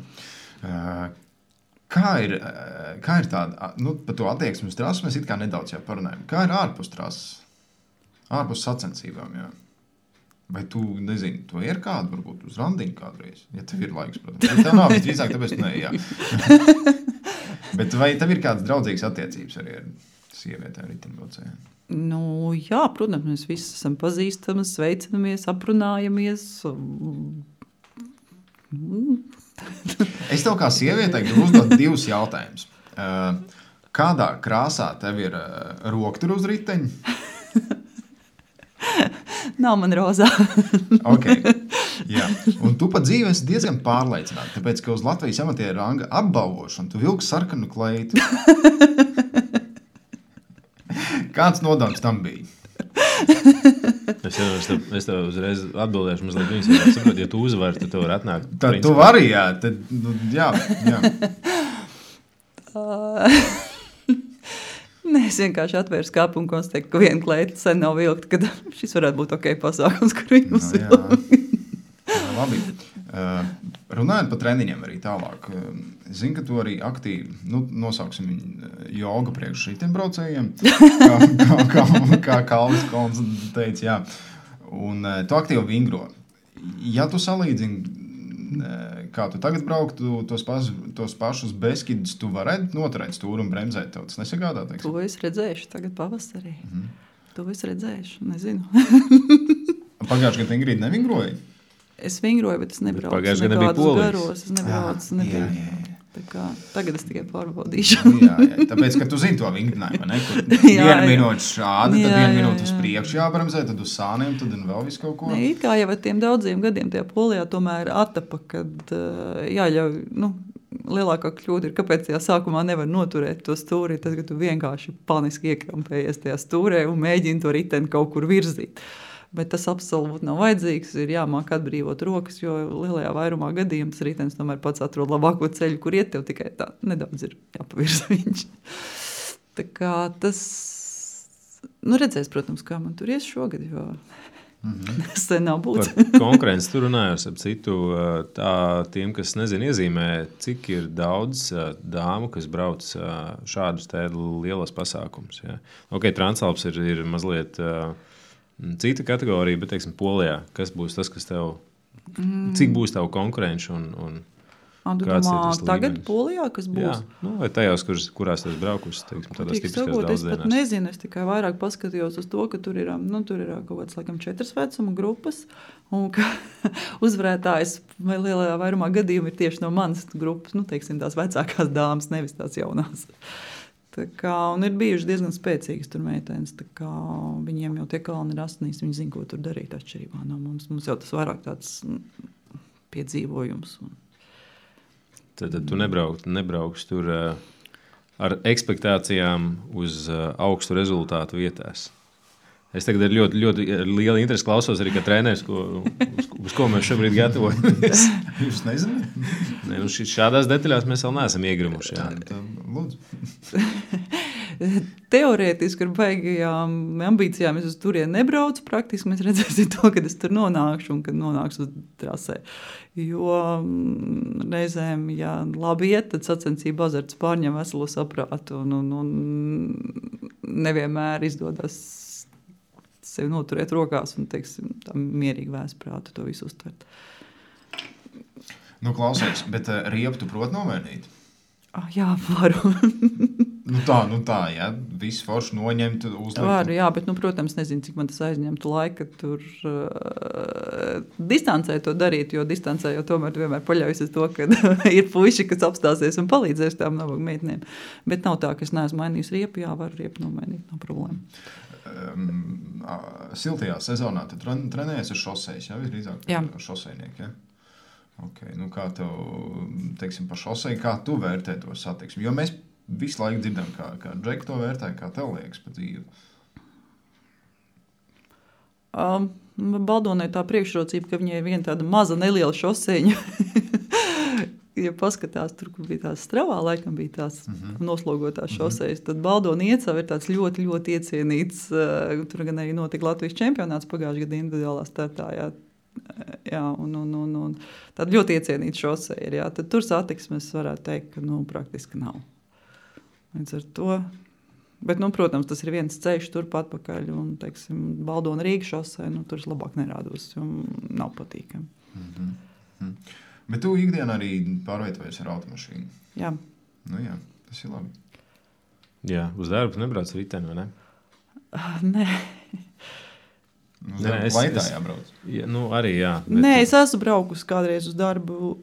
Kā ir tāda, par to attieksmi uz trasu mēs it kā nedaudz jau parunājam. Kā ir ārpus trasas, ārpus sacensībām, jā? Vai tu, nezini, to ir kādu, varbūt uz randiņu kādreiz? Ja tev ir laiks, protams. Ja tev nav, visdrīzāk, tāpēc ne, jā. Bet vai tev ir kādas draudzīgas attiecības arī ar sievietēm riteņbraucējiem? Jā, protams, mēs visi esam pazīstami, sveicinamies, aprunājamies. Es tev kā sievietei gribu uzdot 2 jautājumus. Kādā krāsā tev ir roktura uz riteņa? Nav man rozā. Okay. Jā, un tu pat dzīve esi diezgan pārliecināta, tāpēc, ka uz Latvijas amatieru ranga apbalvošanu tu vilki sarkanu kleitu. Kāds nodoms tam bija? Es tev uzreiz atbildēšu mazliet viņas, ja saprot, ja tu uzvari, tad tu vari atnākt. Tad tu vari, jā. Tad, jā. Nē, es vienkārši atvēru skāpu un konstatēju, ka viena kleita sen nav vilkta, kad šis varētu būt ok pasākums, kur viņu uzvilkt. Labi. Runājot par treniņiem arī tālāk. Zinu, ka tu arī aktīvi, nosauksim viņu joga priekš šitiem braucējiem, kā Kalvis Kolns teica, jā. Un tu aktīvi vingro. Ja tu salīdzini, kā tu tagad brauktu tos pašus Beskidus, tu varētu noturēt stūru un bremzēt tev. Tas nesagādā, teiksim? To es redzēšu tagad pavasarī. To es redzēšu, nezinu. Pagājuši gadu Ingrīda nevingroja? Es vingroju, bet es nebraucu. Pagājuši gadu bija Polijas. Garos, es nebraucu. Tā kā, tagad es tikai pārbaudīšu. Jā, tāpēc, ka tu zini to vingrinājumu, ne? Kur vienu minūti šādi, tad vienu minūti uz priekšu jābremzē, tad uz sāniem, tad un vēl visu kaut ko. Ne, it kā jau ar tiem daudziem gadiem tajā Polijā tomēr attapa, kad jāļauj, lielākā kļūda ir, kāpēc tajā sākumā nevar noturēt to stūri, tad, ka tu vienkārši paniski iekrampējies tajā stūrē un mēģini to riteni kaut kur virzīt. Bet tas absolūti nav vajadzīgs, ir jāmāk atbrīvot rokas, jo lielajā vairumā gadījumā tas ritenis tomēr pats atrod labāko ceļu, kur iet, tev tikai tā nedaudz ir jāpavirza viņš. Tā kā tas, redzēs, protams, kā man tur ies šogad, jo tas nav būtis. Par konkurenci tu runājos ap citu, tā tiem, kas nezin iezīmē, cik ir daudz dāmu, kas brauc šādus te lielos pasākumus. Ja? Ok, Transalps ir mazliet cita kategorija, bet, teiksim, Polijā, kas būs tas, kas tev, cik būs tavu konkurenci un kāds ir tas tagad līmenis? Polijā, kas būs? Jā, vai tajās, kurās tas braukus, teiksim, tādās tipiskās daudzdienās. Es pat nezinu, es tikai vairāk paskatījos uz to, ka tur ir kaut kāds, laikam, 4 vecuma grupas, un ka uzvarētājs vai lielajā vairumā gadījumu ir tieši no manas grupas, teiksim, tās vecākās dāmas, nevis tās jaunās. Tā kā, un ir bijuši diezgan spēcīgas tur meitenes, tā kā viņiem jau tie kalni ir asinīs, viņi zina, ko tur darīt atšķirībā no mums. Mums jau tas vairāk tāds piedzīvojums. Tad tu nebrauks tur ar ekspektācijām uz augstu rezultātu vietās. Es tagad ar ļoti, ļoti lielu interesi klausos arī, kā treneris, uz ko mēs šobrīd gatavojamies. Jūs nezināt? Ne, šādās detaļās mēs vēl neesam iegrimuši. Lūdzu. Teorētiski ar baigajām ambīcijām es uz turieni nebraucu. Praktiski mēs redzēsim to, kad es tur nonākšu un kad nonākšu uz trasē. Jo reizēm, ja labi iet, tad sacensība azarts pārņem veselo saprātu un nevienmēr izdodas sevi noturēt rokās un, teiksim, tā mierīgi vēsprātu to visu uztvert. Klausies, bet riepu tu prot novērnīt? Jā, varu. tā, jā, visu foršu noņemt, uzlikt. Varu, jā, bet, protams, nezinu, cik man tas aizņemtu laika tur distancē to darīt, jo distancē jau tomēr vienmēr paļaujas uz to, ka ir puiši, kas apstāsies un palīdzēs tām nabaga meitnēm. Bet nav tā, ka es neesmu mainījis riepu, jā, varu riepu nomainīt, nav problēma. Siltajā sezonā tu trenējies ar šosejas, jā, visdrīzāk šosejnieki, jā? Okay, kā tev, teiksim, pa šoseju, kā tu vērtē to satiksmi? Jo mēs visu laiku dzirdam, kā Džeki to vērtē, kā tev liekas pa dzīvi? Baldonai tā priekšrocība, ka viņai ir viena tāda maza neliela šoseņa. Ja paskatās, tur, kur bija tās Stravā, laikam bija tās noslogotās šosejas, tad Baldona Iecava ir tāds ļoti, ļoti iecienīts. Tur gan arī notika Latvijas čempionāts pagājušajā gada individuālā startā. Jā, un tāda ļoti iecienīta šoseja ir. Jā. Tad tur satiksmes varētu teikt, ka praktiski nav. Līdz ar to. Bet, protams, tas ir viens ceļš turpat pakaļ. Un, teiksim, Baldona Rīga šoseja, tur es labāk nerādos, jo nav patīkami. Bet tu ikdienā arī pārvietojies ar automašīnu? Jā. Jā, tas ir labi. Jā, uz darbu nebrauc riteni, vai ne? Nē. Laitā jābrauc? Jā, arī jā. Bet... Nē, es esmu braukusi kādreiz uz darbu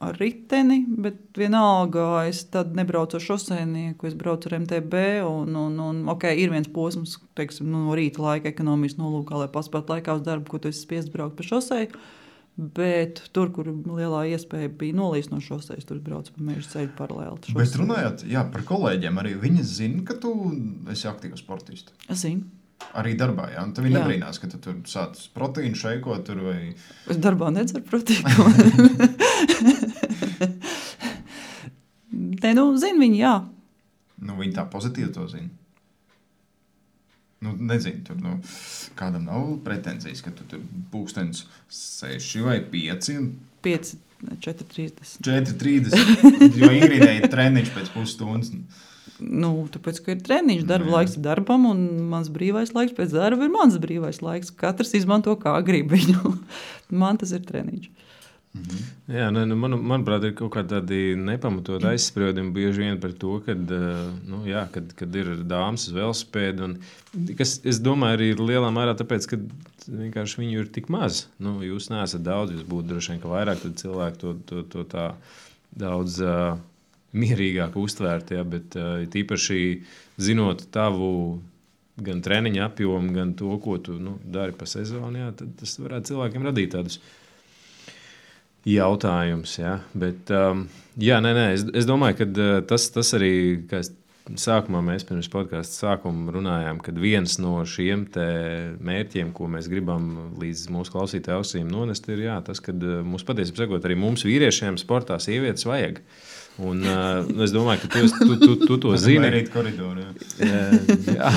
ar riteni, bet vienalga es tad nebraucu ar šoseinieku, es braucu ar MTB un ir viens posms, teiksim, no rīta laika ekonomijas nolūkā, lai paspētu laikā uz darbu, ko tu esi spiests braukt pa šoseju. Bet tur, kur lielā iespēja bija nolīst no šoseis, tur brauc pa meža ceļu paralēli. Bet runājot par kolēģiem, arī viņi zina, ka tu esi aktīvs sportists. Es zinu. Arī darbā, jā? Un tev viņi nebrīnās, ka tu tur sāc proteīnu šeikot tur vai... Es darbā nedzeru proteīnu. Te, zina viņi, jā. Viņi tā pozitīvi to zina. Nezinu, tur kādam nav pretenzijas, ka tu tur pulkstenis 6 vai 5. 5, 4:30. 4:30, jo Ingridai ir treniņš pēc pusstundas. Tāpēc, ka ir treniņš, darba laiks ir darbam, un mans brīvais laiks pēc darba ir mans brīvais laiks. Katrs izmanto kā grib viņu. Man tas ir treniņš. Jā, manuprāt, ir kaut kādi tādi nepamatot aizspriedumi bieži vien par to, kad ir dāmas uz velosipēdu. Kas, es domāju, arī ir lielā mērā tāpēc, ka vienkārši viņu ir tik maz. Jūs neesat daudz, jūs būtu droši vien, ka vairāk cilvēki to tā daudz mierīgāk uztvērt. Ja, bet tīpaši zinot tavu gan treniņa apjomu, gan to, ko tu dari pa sezonu, jā, tad tas varētu cilvēkiem radīt tādus jautājums, jā, bet es domāju, ka tas arī, kā sākumā mēs pirms podkāsta sākuma runājām, kad viens no šiem te mērķiem, ko mēs gribam līdz mūsu klausītāju ausīm nonest, ir tas, kad mums patiesībā sakot, arī mums vīriešiem sportā sievietes vajag. Un es domāju, ka tu to zini. Mērīt koridoru, jā.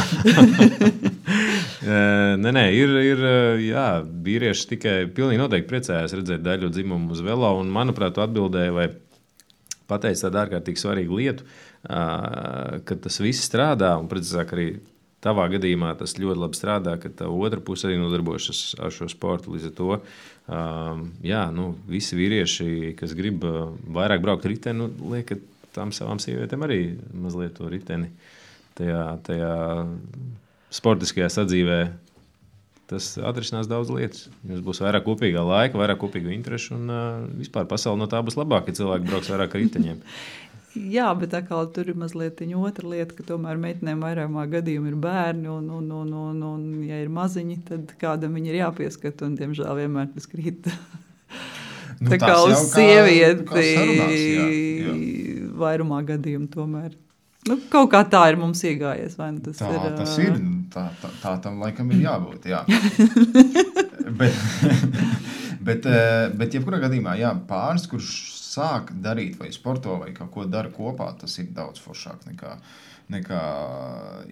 Ir vīrieši tikai pilnīgi noteikti priecājās redzēt daļu dzimumu uz velo, un manuprāt, tu atbildēji vai pateici tādu ārkārtīgi svarīgu lietu, ka tas viss strādā, un precīzāk arī tavā gadījumā tas ļoti labi strādā, ka tā otra puse arī nodarbojas ar šo sportu. Līdz ar to, visi vīrieši, kas grib vairāk braukt riteni, liek tām savām sievietēm arī mazliet to riteni tajā sportiskajā sadzīvē. Tas atrisinās daudz lietas. Jums būs vairāk kopīgā laika, vairāk kopīgu interešu, un vispār pasaule no tā būs labāka, ja cilvēki brauks vairāk ar riteņiem. Jā, bet atkal tur ir mazliet otra lieta, ka tomēr meitenēm vairākumā gadījumā ir bērni, un ja ir maziņi, tad kādam viņi ir jāpieskat, un diemžēl vienmēr tas krīt. Tā kā uz sievieti vairumā gadījumu tomēr. Kaut kā tā ir mums iegājies, vai ne? Tas ir. Tā tam laikam ir jābūt, jā. bet jebkurā gadījumā, jā, pāris, kurš sāk darīt vai sporto vai kaut ko dara kopā, tas ir daudz foršāk nekā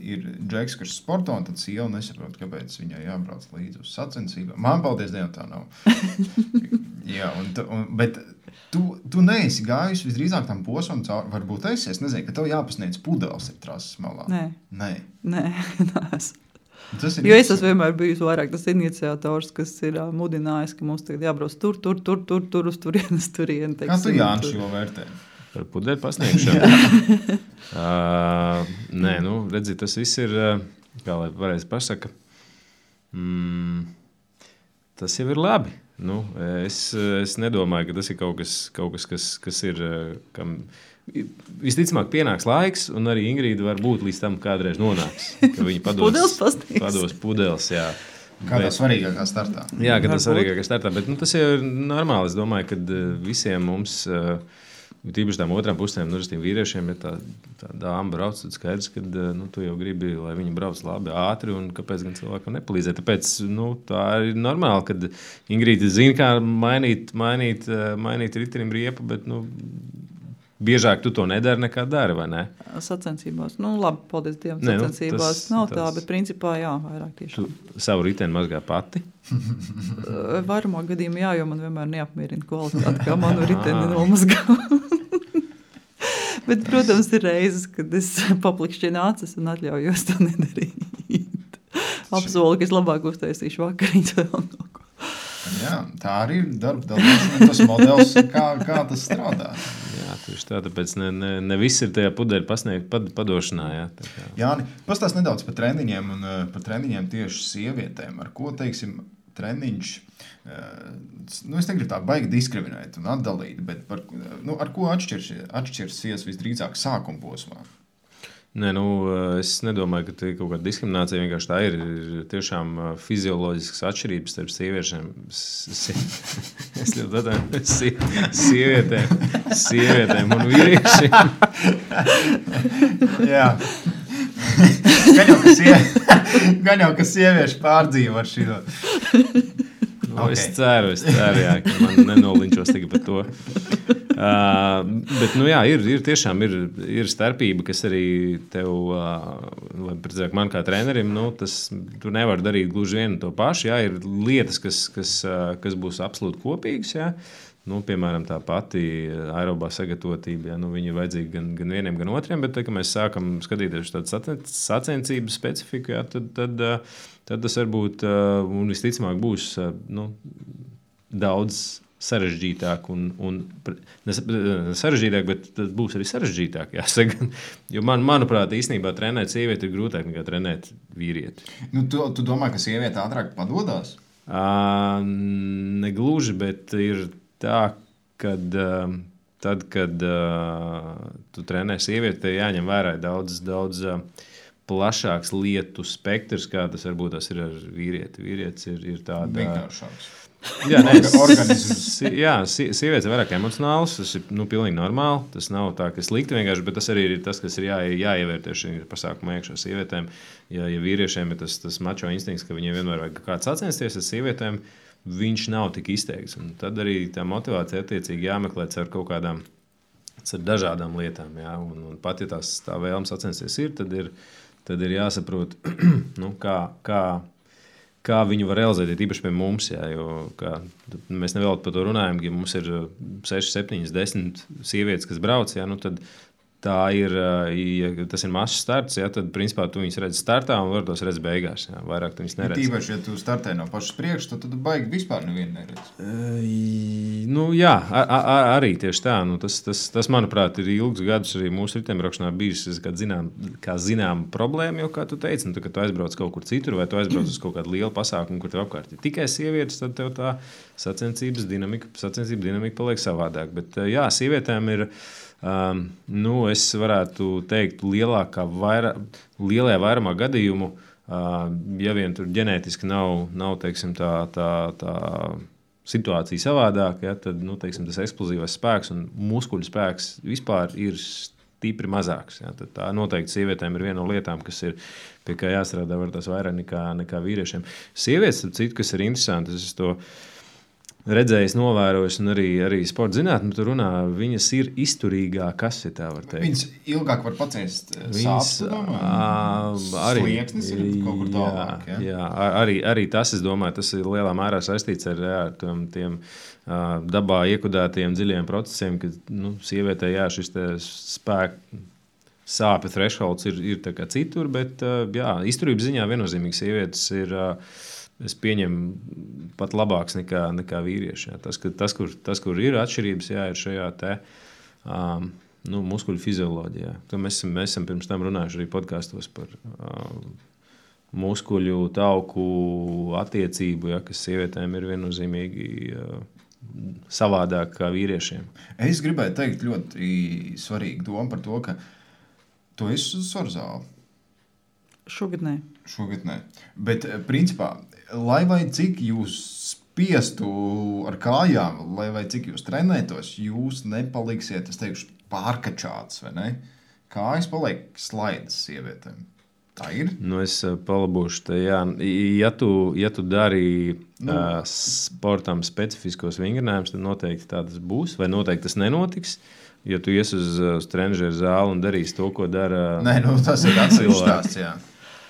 ir Džeks, kurš sporto, un tad sieva nesaprot, kāpēc viņai jābrauc līdzi uz sacensībām. Man, paldies Dievam, tā nav. Jā, bet tu neesi gājusi visdrīzāk tam posmam cauri. Varbūt es nezinu, ka tev jāpasniedz pudeles ir trases malā. Nē, neesmu. Jo es esmu vienmēr bijusi vairāk tas iniciators, kas ir mudinājis, ka mums tagad jābrauc tur, uz turieni. Kā tu, Jānis, šo vērtē? Par pudeļu pasniegšanu? Nē, redzi, tas viss ir, kā lai pareizi pasaka, tas jau ir labi. Es nedomāju, ka tas ir kaut kas, kas ir, kam visticamāk pienāks laiks, un arī Ingrīda var būt līdz tam kādreiz nonāks, ka viņa pados pudeles, jā. Kādā svarīgākā startā. Jā, kādā svarīgākā startā, bet tas jau ir normāli. Es domāju, ka visiem mums, tīpaši tām otrām pusēm, vīriešiem, ja tā dāma brauc, tad skaidrs, ka tu jau gribi, lai viņi brauc labi, ātri, un kāpēc gan cilvēkam nepalīdzēt. Tāpēc tā ir normāli, kad Ingrīda zina, kā mainīt ritenim riepu, bet biežāk tu to nedari nekā dari, vai ne? Sacensībās. Labi, paldies Dievam, sacensībās nav tā, bet principā jā, vairāk tiešām. Tu savu riteni mazgā pati? Vairumā gadījumā jā, jo man vienmēr neapmierina kvalitāti, kā manu riteni nomazgā. Bet, protams, ir reizes, kad es paplikšķinu acis un atļaujos to nedarīt. Apsolu, ka es labāk uztaisīšu vakariņas vēl kaut ko. Jā, tā arī ir darba dalīšana, tas modelis, kā tas strādā. Jā, tieši tā, tāpēc ne viss ir tajā pudeļu padošanā. Jā, Jāni, pastāst nedaudz par treniņiem un par treniņiem tieši sievietēm. Ar ko, teiksim, treniņš, es negribu tā baigi diskriminēt un atdalīt, bet ar ko atšķirsies visdrīzāk sākuma posmā? Nē, es nedomāju, ka tā ir kaut kāda diskriminācija. Vienkārši tā ir tiešām fizioloģiskas atšķirības starp sieviešiem. Es ļoti atvainojos sievietēm un vīriešiem. Jā. Gan jau, ka sievieši pārdzīvo ar šito. Okay. Es ceru, jā, ka man nenolinčos tikai par to. Bet, jā, tiešām ir starpība, kas arī tev, man kā trenerim, tu nevar darīt gluži vienu to pašu. Jā, ir lietas, kas būs absolūti kopīgas, jā. Piemēram, tā pati aerobā sagatavotība, jā, viņa ir vajadzīga gan vieniem, gan otriem, bet, kad mēs sākam skatīties tādu sacensību specifiku, jā, tad tas varbūt, un visticamāk būs daudz sarežģītāk, sarežģītāk, bet tas būs arī sarežģītāk, jāsaka. Jo manuprāt, īstenībā trenēt sievieti ir grūtāk nekā trenēt vīrieti. Tu domā, ka sieviete ātrāk padodās? Negluži, bet ir tā, kad tu trenē sievieti, tev jāņem vērā daudz plašāks lietu spektrs, kā tas varbūt tas ir ar vīrieti. Vīrietis ir tāda... Vienkāršāks. Jā, sievietes ir vairāk emocionāls, tas ir pilnīgi normāli. Tas nav tā, ka slikti vienkārši, bet tas arī ir tas, kas ir jāievērtē šī pasākuma iekšā sievietēm. Ja vīriešiem ir tas mačo instinkts, ka viņiem vienmēr vajag kāds sacensties ar sievietēm, viņš nav tik izteikts. Un tad arī tā motivācija attiecīgi jāmeklē ar kaut kādām, ar dažādām lietām. Jā. Un pat, ja tā vēlme sacensties ir, tad ir jāsaprot, kā viņu var realizēt, īpaši pie mums. Jā, jo, mēs nevēl par to runājam, ja mums ir 6, 7, 10 sievietes, kas brauc, jā, tad tā ir, ja tas ir mazs starts, jā, tad principā tu viņus redzi startā un var tos redz beigās. Jā, vairāk tu viņus neredzi. Tīpaši, ja tu startē no pašas priekš, tad baigi vispār nevienu neredzi. Jā, arī tieši tā. Tas, manuprāt, ir ilgus gadus arī mūsu ritembraukšanā bijis kā zinām problēma, jo, kā tu teici, kad tu aizbrauc kaut kur citur vai tu aizbrauc uz kaut kādu lielu pasākumu, kur tev apkārt ir tikai sievietes, tad tev tā sacensības dinamika paliek savādāk. Bet jā, sievietēm ir... es varētu teikt, lielajā vairumā gadījumu, ja vien tur ģenētiski nav teiksim, tā situācija savādāka, ja, tad teiksim, tas eksplozīvais spēks un muskuļu spēks vispār ir stipri mazāks. Ja, tad tā noteikti sievietēm ir viena no lietām, kas ir pie kā jāstrādā var tas vairāk nekā vīriešiem. Sievietes, citu, kas ir interesanti, es to redzējis, novērojis, un arī sporta zinātnē, tur runā, viņas ir izturīgākas, ja tā var teikt. Viņas ilgāk var paciest sāpes, slieksnis ir kaut kur tālāk. Jā, arī tas, es domāju, tas ir lielā mērā saistīts ar tiem dabā iekudētajiem dziļiem procesiem, ka sievietē šis spēku sāpju thresholds ir tā kā citur, bet izturības ziņā viennozīmīgi sievietes ir... Es pieņemu pat labāks nekā vīrieši. Jā. Tas, kur ir atšķirības, ir šajā muskuļu fizioloģijā. Mēs esam pirms tam runājuši arī podkastos par muskuļu tauku attiecību, kas sievietēm ir viennozīmīgi savādāk kā vīriešiem. Es gribēju teikt ļoti svarīgu domu par to, ka tu esi uz svaru zāli. Šogad nē. Bet, principā, lai vai cik jūs spiestu ar kājām, lai vai cik jūs trenētos, jūs nepaliksiet, es teikšu, pārkačāts, vai ne? Kājas paliek slaidas sievietēm. Tā ir? Es palabošu te, jā. Ja tu dari sportam specifiskos vingrinājumus, tad noteikti tā tas būs, vai noteikti tas nenotiks. Ja tu ies uz trenežeru zāli un darīsi to, ko dara... Nē, tas ir atsevišķs stāsts, jā.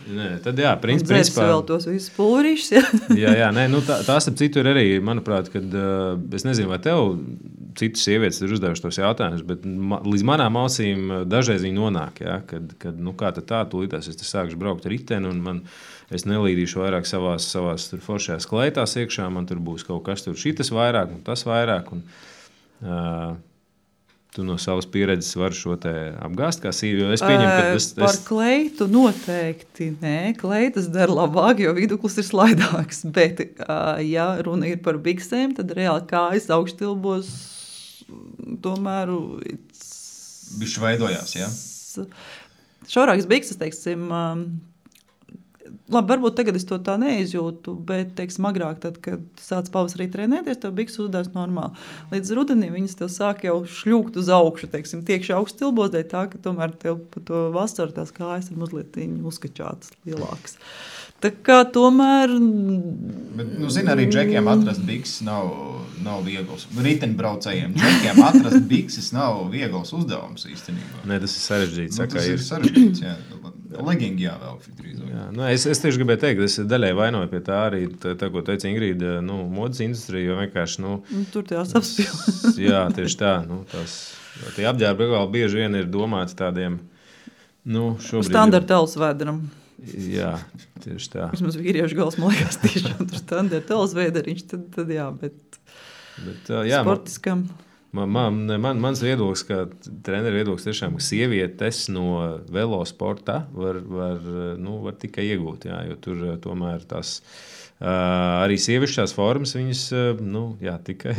Nē, tad jā, principā... vēl tos visus pulverīšus, jā. jā, nē, tās ap citu ir arī, manuprāt, kad es nezinu, vai tev citas sievietes ir uzdevuši tos jautājumus, bet līdz manām ausīm dažreiz viņi nonāk, jā, kad kā tad tā, tūlītās es te sākšu braukt riteni un es nelīdīšu vairāk savās foršajās kleitās iekšā, man tur būs kaut kas tur šitas vairāk un tas vairāk un... Tu no savas pieredzes vari šo te apgāzt kā sīvi, jo es pieņemu, ka Par kleitu noteikti nē, kleitas dara labāk, jo viduklis ir slaidāks, bet ja runa ir par biksēm, tad reāli kājas augštilbos tomēr... Bišķi veidojās, jā? šaurākas bikses, teiksim, labi, varbūt tagad es to tā neizjūtu, bet, teiksim, agrāk, tad, kad sāc pavasarī trenēties, tev bikses uzdās normāli. Līdz rudenī viņas tev sāk jau šļūkt uz augšu, teiksim, tiekši augsts tilbos, dēļ tā, ka tomēr tev pa to vasaru tās kājas ir mazliet uzkačātas lielākas. Tā kā tomēr... Bet, zini, arī džekiem atrast bikses nav viegls. Riteņbraucējiem džekiem atrast bikses nav viegls uzdevums īstenībā. Nē, tas ir sarežģīts. Tas ir sarežģīts, jā. Legingi jāvelk drīzāk. Jā, es tieši gribēju teikt, es daļai vainoju pie tā arī, tā ko teica Ingrīda, modes industrija, jo vienkārši, tur tās apspīl. Jā, tieši tā, tie apģērbi bieži vien ir domāti tādiem, šobrīd... Standarta alsvēderam. Jā, tieši tā. Vismaz vīriešu gals, man liekas, tiešām tur standarta alsvēderiņš, tad jā, bet jā, sportiskam... Mans viedoklis, ka treneru viedoklis tiešām, ka sievietes no velosporta var tikai iegūt, jā, jo tur tomēr tās arī sievišķās formas, viņas, tikai,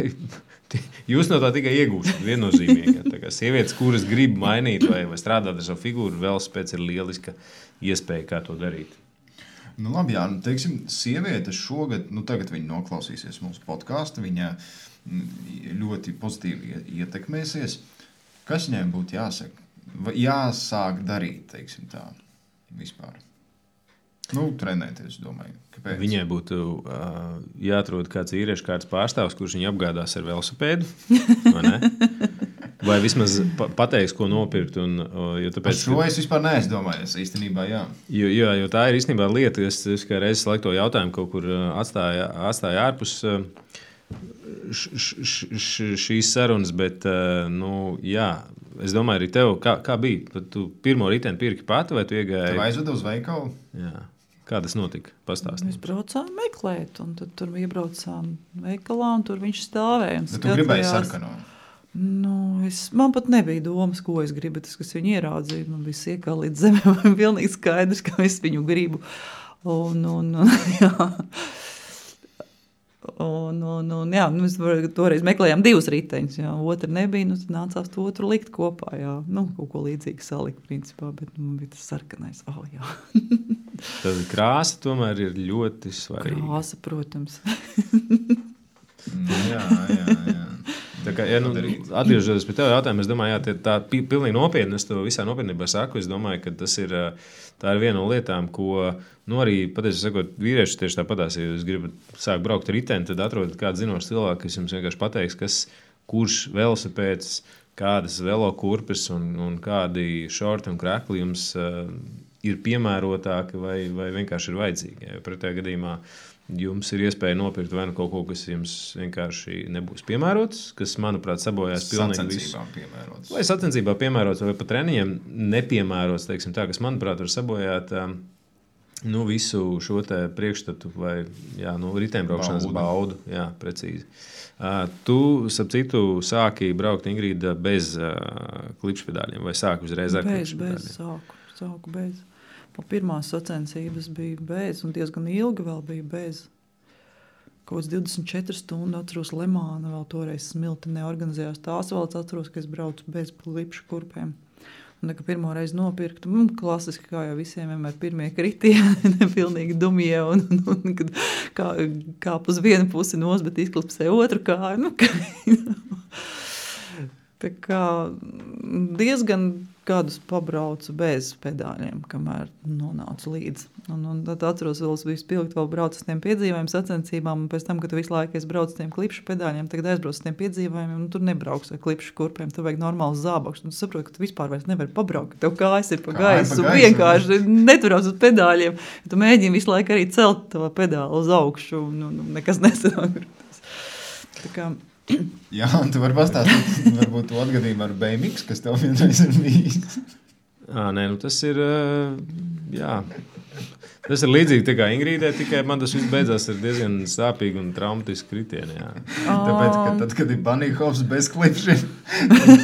jūs no tā tikai iegūstat viennozīmīgi. Tā kā sievietes, kuras grib mainīt vai strādāt ar savu figūru, velospēds ir lieliska iespēja, kā to darīt. Labi, jā, teiksim, sievietes šogad, tagad viņa noklausīsies mūsu podcastu, viņa ļoti pozitīvi ietekmēsies. Kas viņai būtu jāsāk darīt, teiksim tā, vispār? Trenēties, domāju. Kāpēc? Viņai būtu jāatrod kāds vīriešu kārtas pārstāvs, kurš viņu apgādās ar velosipēdu, vai ne? Vai vismaz pateiks, ko nopirkt. Šo es vispār neesmu domājis, īstenībā, jā. Jo tā ir īstenībā lieta, es kā reizes laiku to jautājumu kaut kur atstāja ārpus šīs sarunas, bet, jā, es domāju arī tev, kā bija? Tu pirmo riteni pirki pati, vai tu iegāji? Tev aizvedu uz veikalu? Jā. Kā tas notika? Pastāstīt. Mēs braucām meklēt, un tad tur iebraucām veikalā, un tur viņš stāvēja. Bet tu gribēji sarkano? Man pat nebija domas, ko es gribu, tas, kas viņu ieraudzīja. Man bija siekā līdz zemē, man pilnīgi skaidrs, ka es viņu gribu. Jā, mēs toreiz meklējām 2 riteņus, jā, otru nebija, tad nācās to otru likt kopā, jā. Kaut ko līdzīgi salikt, principā, bet bija tas sarkanais, jā. Tad krāsa tomēr ir ļoti svarīga. Krāsa, protams. Jā. Tā kā, atgriežoties pie tev jautājumu, es domāju, tā pilnīgi nopietni, es to visā nopietnībā saku, es domāju, ka tā ir viena no lietām, ko, arī, patiesi sakot, vīrieši tieši tāpatās, ja jūs gribat sākt braukt riteni, tad atrodat kādu zinošu cilvēku, kas jums vienkārši pateiks, kurš velosipēds, kādas velokurpes un kādi šorti un krekli jums ir piemērotāki vai vienkārši ir vajadzīgi. Ja pretējā gadījumā jums ir iespēja nopirkt vai kaut ko, kas jums vienkārši nebūs piemērots, kas, manuprāt, sabojās pilnīgi visu. Vai sacensībā piemērots, vai pat treniņiem nepiemērots, teiksim tā, kas, manuprāt, var sabojāt visu šo te priekšstatu vai riteņbraukšanas baudu. Jā, precīzi. Tu, starp citu, sāki braukt, Ingrīda, bez klipšpedāļiem vai sāki uzreiz ar klipšpedāļiem? Sāku bez. Pirmās sacensības bija bez, un diezgan ilgi vēl bija bez. Kaut 24 stundu atceros Lemāna, vēl toreiz Smilti neorganizējās. Tās vēl atceros, ka es braucu bez klipšu kurpēm. Un, kad pirmo reizi nopirktu, klasiski, kā jau visiem vienmēr pirmie kritieni, pilnīgi dumie, un kad kāp uz vienu pusi nos, bet izklipsē otru kāju. Tā kā diezgan gadus pabraucu bez pedāļiem, kamēr nonācu līdz. Un tad atceros, vēl biju spilgt, vēl braucu uz tiem piedzīvājumiem, sacensībām, un pēc tam, kad visu laiku es braucu uz tiem klipšu pedāļiem, tagad aizbraucu uz tiem piedzīvājumiem, un tur nebrauks ar klipšu kurpēm, tur vajag normāls zābaks. Un tu saproti, ka tu vispār vairs nevari pabraukt, tev kājas ir pa gaisu, un vienkārši neturās uz pedāļiem. Tu mēģini visu laiku arī celt to pedālu uz augšu, un nekas nesanāk. Tā kā... Jā, un tu vari pastāstīt, varbūt to atgadījumu ar BMX, kas tev vienreiz ir bijis. Tas ir, tas ir līdzīgi tā kā Ingrīdē, tikai man tas viss beidzās ar diezgan sāpīgu un traumatisku kritienu, jā. Tāpēc, ka tad, kad ir bunny hops bez klipšiem,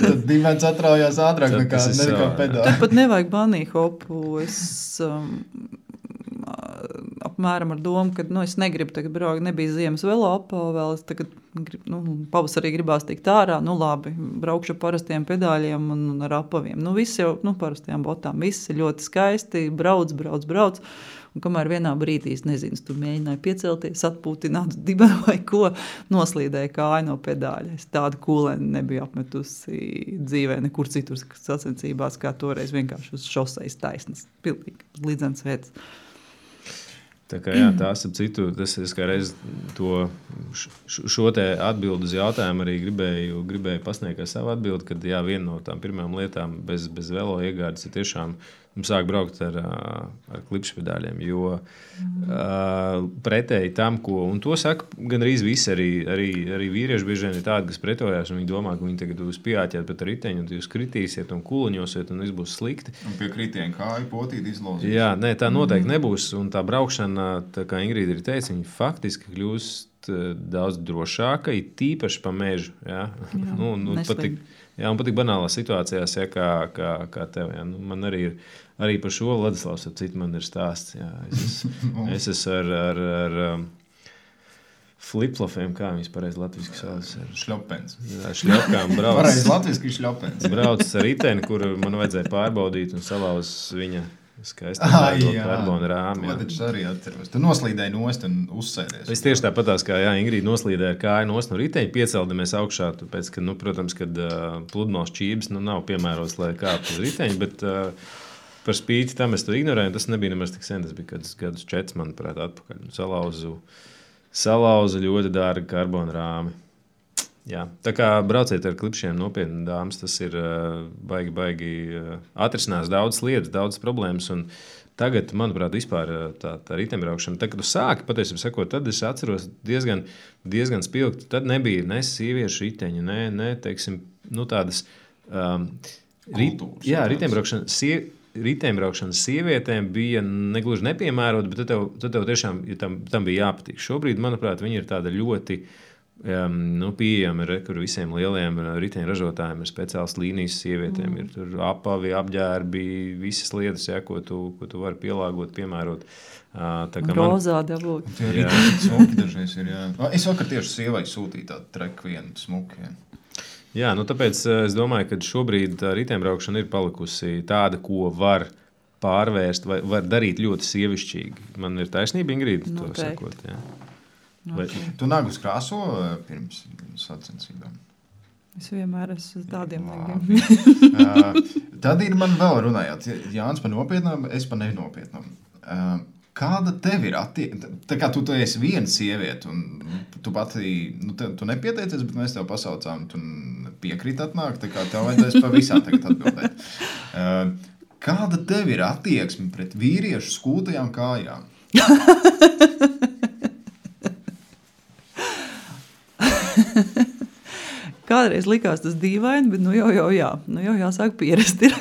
tad dimens atraujās ātrāk nekā pedāli. Tad pat nevajag bunny hopu, es... apmēram ar domu, ka es negribu tagad braukt, nebija ziemas velo apā vēl, es tagad pavasarī gribās tikt ārā, labi, braukšu parastiem pedāļiem un ar apaviem. Viss jau, parastajām botām, viss ir ļoti skaisti, brauc. Un kamēr vienā brīdī, es nezinu, tu mēģināji piecelties, atpūtināt dibenu vai ko, noslīdēja kāju no pedāļa. Es tādu kūleni nebiju apmetusi dzīvē nekur citur sacensībās, kā toreiz vienkārši uz šoseis taisnas. Pilnīgi līdzens veids. Tā kā tās ap citu, es kā reiz šo te atbildu uz jautājumu arī gribēju pasniegt kā savu atbildi, kad viena no tām pirmām lietām bez velo iegādes ir tiešām sāk braukt ar klipšpedāļiem, jo pretēji tam, un to saka gandrīz visi, arī vīrieši bieži vien ir tādi, kas pretojās, un viņi domā, ka viņi tagad jūs pieāķēt pēc riteņu, un jūs kritīsiet un kuliņosiet, un viss būs slikti. Un pie kritiena kāju potīt izlozīt. Jā, nē, tā noteikti nebūs, un tā braukšana, tā kā Ingrīda ir teica, viņa faktiski kļūst daudz drošāka, ir tīpaši pa mežu. Jā, un patīk banālās situācijās, kā tev. Jā. Man arī par šo Ladislavs ar citu man ir stāsts. Jā. Es esmu ar flip-flopiem, kā viņas pareizi latviski sauc. Šļopens. Jā, šļopkām brauc. Pareizi latviski šļopens. Brauc ar riteni, kur man vajadzēja pārbaudīt un salauz viņa skaisti karbona rāmi. To taču arī atceros. Tu noslīdēji nost un uzsēdies. Es tieši tāpatās, kā Ingrīda noslīdēja kāju nost no riteņa, pieceldamies augšā, tāpēc, ka, protams, kad pludmales čības nav piemērots, lai kāptu uz riteņa, bet par spīti tam es to ignorēju, tas nebija nemaz tik sen, tas bija kādus 4, manuprāt, atpakaļ. Salauzu ļoti dārgu karbona rāmi. Jā. Tā kā brauciet ar klipšiem nopietni, dāmas, tas ir baigi atrisinās daudzas lietas, daudzas problēmas. Un tagad, manuprāt, vispār tā riteņbraukšana, tad, kad tu sāki, patiesībā sakot, tad es atceros diezgan spilgti. Tad nebija ne sieviešu riteņu, ne teiksim, tādas kultūras. Jā, riteņbraukšana sievietēm bija negluži nepiemērota, bet tad tev tiešām tam bija jāpatīk. Šobrīd, manuprāt, viņi ir tāda ļoti pieejami, kur visiem lieliem riteņražotājiem ir speciāls līnijas sievietēm. Ir tur apavi, apģērbi, visas lietas, ko tu vari pielāgot, piemērot. Rozā dabūt. Jā, smuki dažreiz ir, jā. Es vakar tieši sievai sūtīju tādu treku vienu smuki, jā. Jā, tāpēc es domāju, ka šobrīd riteņbraukšana ir palikusi tāda, ko var pārvērst, vai var darīt ļoti sievišķīgi. Man ir taisnība, Ingrīda, to sakot, jā. Vai tu nagus krāso pirms sacensībām? Es vienmēr esmu tādiem nagiem. Tad ir man vēl runājot. Jānis par nopietnām, es par nenopietnām. Kāda tev ir attieksme? Tā kā tu esi viena sieviete, un tu pati, tu nepieteicies, bet mēs tev pasaucām, tu piekrīt atnākt, tā kā tev vajadzēs pa visām tagad atbildēt. Kāda tev ir attieksme pret vīriešu skūtajām kājām? Kādreiz likās tas dīvaini, bet jau jāsāk pierast ir.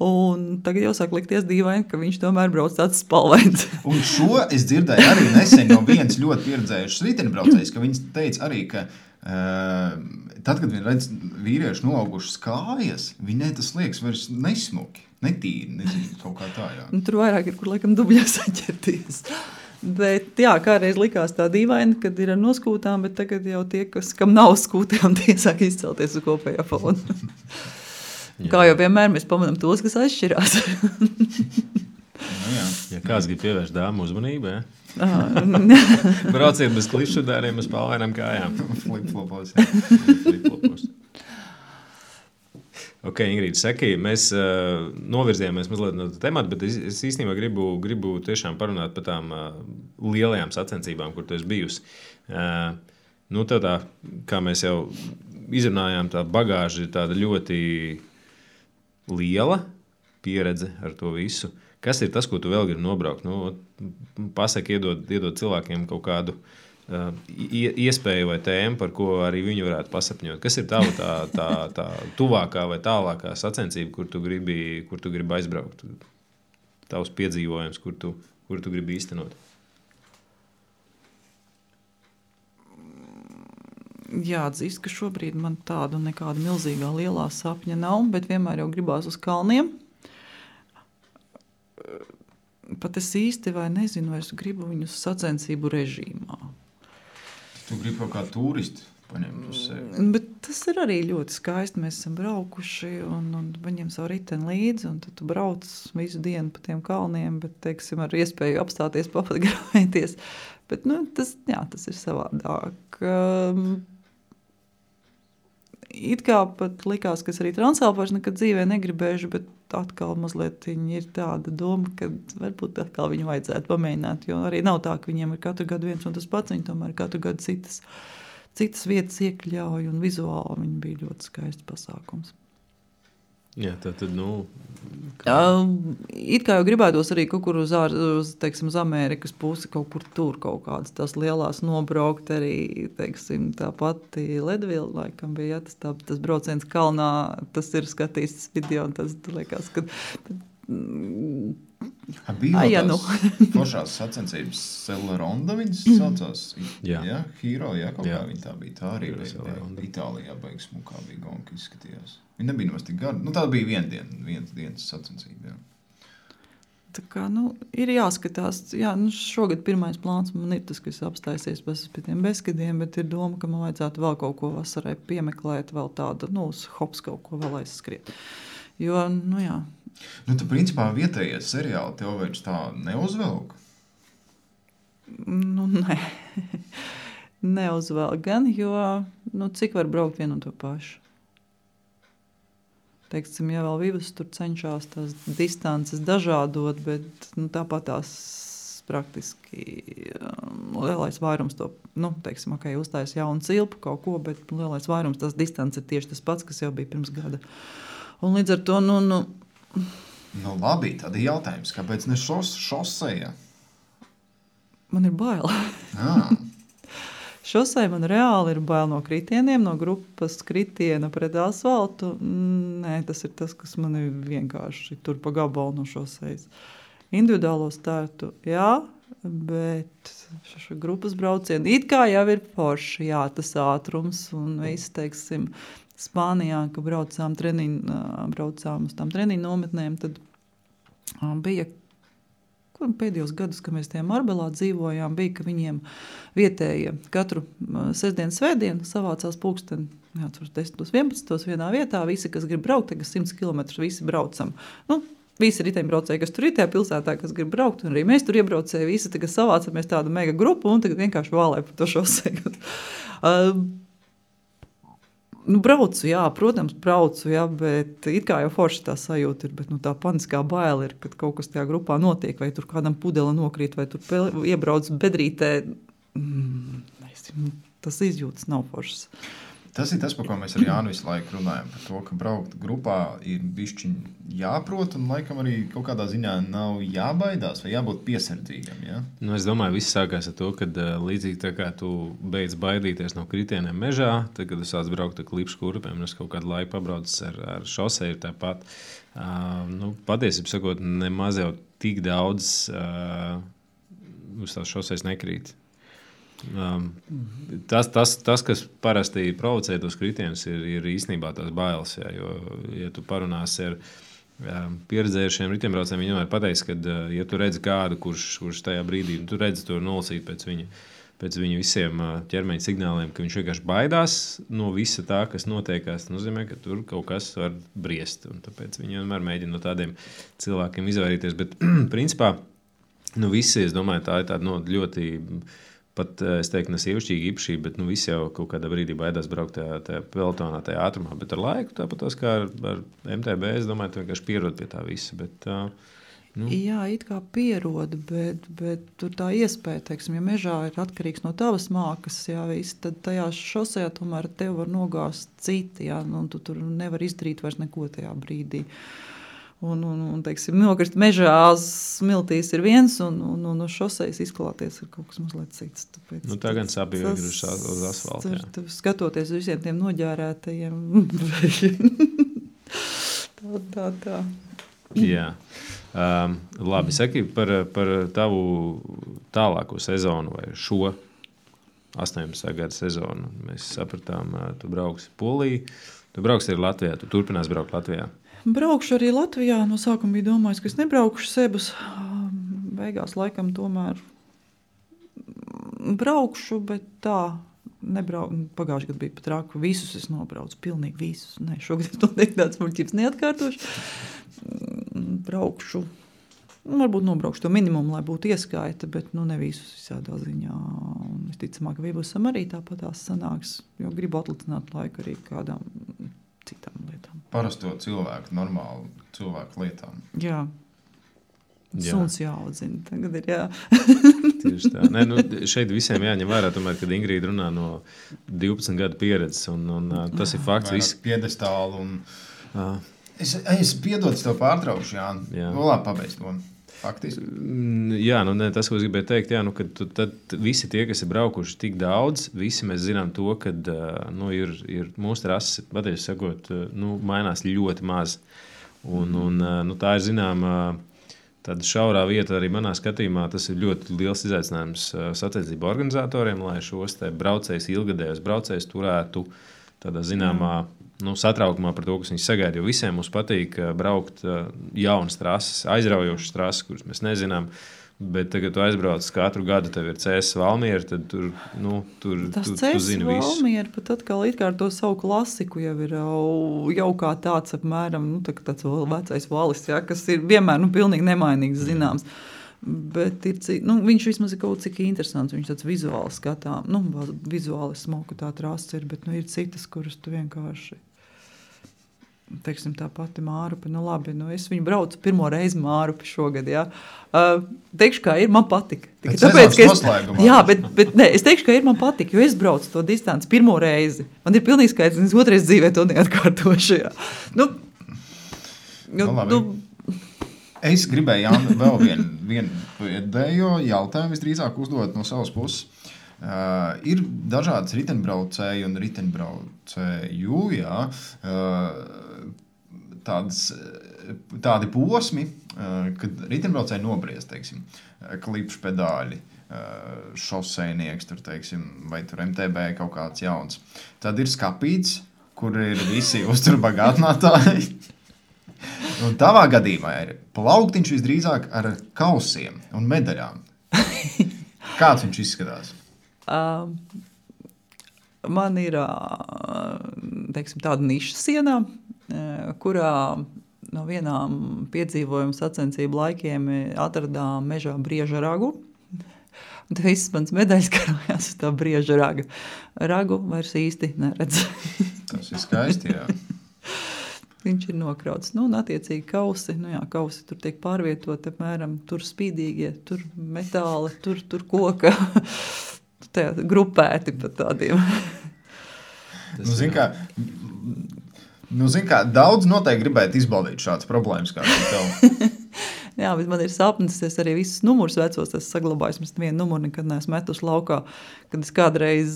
Un tagad jau sāk likties dīvaini, ka viņš tomēr brauc tāds spalvains. Un šo es dzirdēju arī nesen no viens ļoti pieredzējušas riteņbraucējs, ka viņš teica arī, ka tad, kad viņi redz vīriešu noaugušas kājas, viņai tas liekas vairs nesmuki, netīri, nezinu, kaut kā tā, jā. Tur vairāk ir, kur laikam dubļā saķerties. Bet jā, kādreiz likās tā dīvaini, kad ir ar noskūtām, bet tagad jau tie, kam nav skūtām, tie sāk izcelties uz kopējā fona. Kā jau vienmēr mēs pamanām tos, kas atšķirās. Ja kāds grib pievērst dāmu uzmanību, brauciet bez klipšudāriem uz palvainām kājām. Flip-flopos. Ok, Ingrīda, saki, mēs novirzījāmies mazliet no temata, bet es īstenībā gribu tiešām parunāt par tām lielajām sacensībām, kur tu esi bijusi. Tev tā, kā mēs jau izrunājām, tā bagāža ir tāda ļoti liela pieredze ar to visu. Kas ir tas, ko tu vēl gribi nobraukt? Pasaki, iedod cilvēkiem kaut kādu iespēju vai tēmu, par ko arī viņi varētu pasapņot. Kas ir tava tā tuvākā vai tālākā sacensība, kur tu gribi aizbraukt? Tavs piedzīvojums, kur tu gribi īstenot? Jāatzīst, ka šobrīd man tāda nekāda milzīgā lielā sapņa nav, bet vienmēr jau gribās uz kalniem. Pat es īsti vai nezinu, vai es gribu viņus sacensību režīmā. Tu gribi kaut kā turisti paņemt uz sevi. Bet tas ir arī ļoti skaisti. Mēs esam braukuši un paņem savu riteni līdzi, un tad tu brauc visu dienu pa tiem kalniem, bet, teiksim, ar iespēju apstāties, papatgrāvēties. Bet, tas ir savādāk. It kā pat likās, ka es arī Transalpu nekad dzīvē negribēšu, bet atkal mazliet ir tāda doma, ka varbūt atkal viņu vajadzētu pamēģināt, jo arī nav tā, ka viņiem ir katru gadu viens un tas pats, viņi tomēr katru gadu citas vietas iekļauj, un vizuāli viņi bija ļoti skaists pasākums. Jā, tad, it kā jau gribētos arī kaut kur uz Amerikas pusi, kaut kur tur kaut kādas tās lielās nobraukt arī, teiksim, tā pati Ledvila, laikam bija, tas brauciens kalnā, tas ir skatīts video, un tas liekas, ka... Bija foršās sacensības Celeronda viņas saucās. Hero, kaut kā viņa tā bija. Tā arī bija Itālijā beigas smukā bija gonka izskatījās. Viņa nebija nemaz tik gara. Tā bija viens dienas sacensība. Tā kā, ir jāskatās. Šogad pirmais plāns man ir tas, ka es apstājusies pie tiem bezskadiem, bet ir doma, ka man vajadzētu vēl kaut ko vasarai piemeklēt, vēl tādu, uz hops kaut ko vēl aizskriet. Jo, jā. Tu principā vietējie seriāli tev vairs tā neuzvelk? Nē. Neuzvelk gan, jo, cik var braukt vienu un to pašu. Teiksim, ja vēl Vivas tur cenšās tās distances dažādot, bet tāpat tās praktiski lielais vairums to, teiksim, uztais jaunu cilpu kaut ko, bet lielais vairums tās distances ir tieši tas pats, kas jau bija pirms gada. Un līdz ar to, labi, tad ir jautājums, kāpēc ne šoseja? Man ir bail. Šosei man reāli ir bail no kritieniem, no grupas kritiena pret asfaltu. Nē, tas ir tas, kas man ir vienkārši tur pa gabalu no šosejas. Individuālo startu, jā, bet grupas braucieni it kā jau ir forši, jā, tas ātrums un viss, teiksim, Spānijā, ka braucām uz tām treniņu nometnēm, tad bija pēdējos gadus, kad mēs tajā Marbelā dzīvojām, bija, ka viņiem vietējie katru sestdienu, svētdienu savācās pulksteni 10-11 vienā vietā, visi, kas grib braukt, tagad 100 km, visi braucam. Visi riteņbraucēji, kas tur ir tajā pilsētā, kas grib braukt, un arī mēs tur iebraucēji, visi tagad savācamies tādu mega grupu, un tagad vienkārši vālē par to šoseju. Braucu, jā, protams, bet it kā jau forši tā sajūta ir, bet tā paniskā baila ir, kad kaut kas tajā grupā notiek, vai tur kādam pudele nokrīt, vai tur iebrauc bedrītē. Tas izjūtas nav foršas. Tas ir tas, par ko mēs ar Jānu visu laiku runājam, par to, ka braukt grupā ir bišķiņ jāprot, un laikam arī kaut kādā ziņā nav jābaidās vai jābūt piesardzīgam, ja? Es domāju, viss sākās ar to, kad līdzīgi tā kā tu beidz baidīties no kritieniem mežā, tad, kad tu sāc braukt ar klipšu kurpēm, es kaut kādu laiku pabraucis ar šoseju tāpat. Patiesībā sakot, nemaz jau tik daudz uz tās šosejas nekrīt. Tas, kas parasti provocē tos kritienus, ir īstenībā tās bailes. Jā, jo, ja tu parunāsi ar pieredzējušiem riteņbraucējiem, viņi vienmēr pateiks, ka, ja tu redzi kādu, kurš tajā brīdī, tu redzi to nolasīt pēc viņa visiem ķermeņa signāliem, ka viņš vienkārši baidās no visa tā, kas notiekās, nozīmē, ka tur kaut kas var briest. Un tāpēc viņi vienmēr mēģina no tādiem cilvēkiem izvairīties. Bet, principā, visi, es domāju, tā ir tāda ļoti... Pat, es teiktu, ne sievišķīga īpašība, bet visi jau kaut kādā brīdī baidās braukt tajā pelotonā, tajā ātrumā. Bet ar laiku, tāpat kā ar MTB, es domāju, tu vienkārši pierod pie tā visa. Bet, Jā, it kā pierod, bet tur tā iespēja, teiksim, ja mežā ir atkarīgs no tavas mākas, jā, viss, tad tajā šosejā tomēr tev var nogāzt citi, jā, un tu tur nevar izdarīt vairs neko tajā brīdī. Un teiksim, nokrist mežā smiltīs ir viens, un šosejas izklāties ir kaut kas mazliet cits. Tāpēc tā gan sāpīgi uz asfalta. Skatoties uz visiem tiem noģērētajiem. tā. Jā. Labi, saki par tavu tālāko sezonu vai šo 18. gada sezonu. Mēs sapratām, tu brauksi Polijā, tu brauksi arī Latvijā, tu turpinās braukt Latvijā. Braukšu arī Latvijā. No sākuma bija domājis, ka es nebraukšu sebus. Beigās laikam tomēr braukšu, bet tā Pagājušajā gadā bija pat traki. Visus es nobraucu, pilnīgi visus. Nē, šogad es noteikti tāds muļķības neatkārtošu. Braukšu. Varbūt nobraukšu to minimumu, lai būtu ieskaita, bet ne visus visādā ziņā. Un visticamāk, ka Vībusam arī tāpatās sanāks, jo gribu atlicināt laiku arī kādām citām lietām. Parasto cilvēku, normālu cilvēku lietām. Jā. Suns jāaudzina. Tagad ir jā. Tieši tā. Nē, šeit visiem jāņem vērā, tomēr, kad Ingrīda runā no 12 gadu pieredzes, un tas ir fakts. Vairāk piedestālu un... Es piedodu tev pārtraukšu, Jāni. Labi, pabeidz to. Faktiski. Jā, tas, ko es gribēju teikt, kad tad visi tie, kas ir braukuši tik daudz, visi mēs zinām to, ka ir mūsu trases, patiesi sakot, mainās ļoti maz. Un tā ir zināma tāda šaurā vieta arī manā skatījumā. Tas ir ļoti liels izaicinājums sacensību organizatoriem, lai šos braucējus, ilgadējos braucējus turētu tādā zināmā satraukumā par to, kas viņus sagaida. Jo visiem mums patīk braukt jaunas trases, aizraujošas trases, kuras mēs nezinām. Bet tagad, kad tu aizbrauc katru gadu, tev ir CS Valmiera, tad tur tu zini visu. Tas CS Valmiera pat atkal it kā ar to savu klasiku jau ir jau kā tāds apmēram, tāds vecais valis, kas ir vienmēr pilnīgi nemainīgs zināms. Bet viņš vismaz ir kaut cik interesants, viņš tāds vizuāli skatām, vizuāli smoka tā trasa ir, bet ir citas, kuras tu vienkārši... Teiksim, tā pati Mārupe, labi, es viņu braucu pirmo reizi Mārupe šogad, jā. Teikšu, kā ir, man patika. Tāpēc, jā, bet ne, es teikšu, ka ir, man patika, jo es braucu to distanci pirmo reizi. Man ir pilnīgi skaidrs, un es otrais dzīvē to neatkārtošu, jā. Es gribēju, Jāni, vēl vienu pēdējo jautājumu visdrīzāk uzdot no savas puses. Ir dažādas riteņbraucēji un riteņbraucēju, tādi posmi, kad riteņbraucēji nobriest, teiksim, klipšu pedāļi, šosejnieks, tur, teiksim, vai tur MTB kaut kāds jauns. Tad ir skapīts, kur ir visi uzturbagātinātāji. Un tavā gadījumā ir plauktiņš visdrīzāk ar kausiem un medaļām. Kāds viņš izskatās? Man ir teiksim, tāda niša sienā, kurā no vienām piedzīvojumu sacensību laikiem atradām mežā brieža ragu. Un te viss mans medaļas karājās uz tā brieža raga. Ragu vairs īsti neredz. Tas ir skaisti, jā. Viņš ir nokrauts. Un attiecīgi kausi, kausi tur tiek pārvietot, apmēram, tur spīdīgie, tur metāli, tur koka. Grupēti pat tādiem. Zin kā, daudz noteikti gribētu izbaudīt šādas problēmas kā tev. Jā, bet man ir sapnis, es arī visus numurus vecos esmu saglabājis, es nevienu numuru nekad neesmu metuši laukā, kad es kādreiz,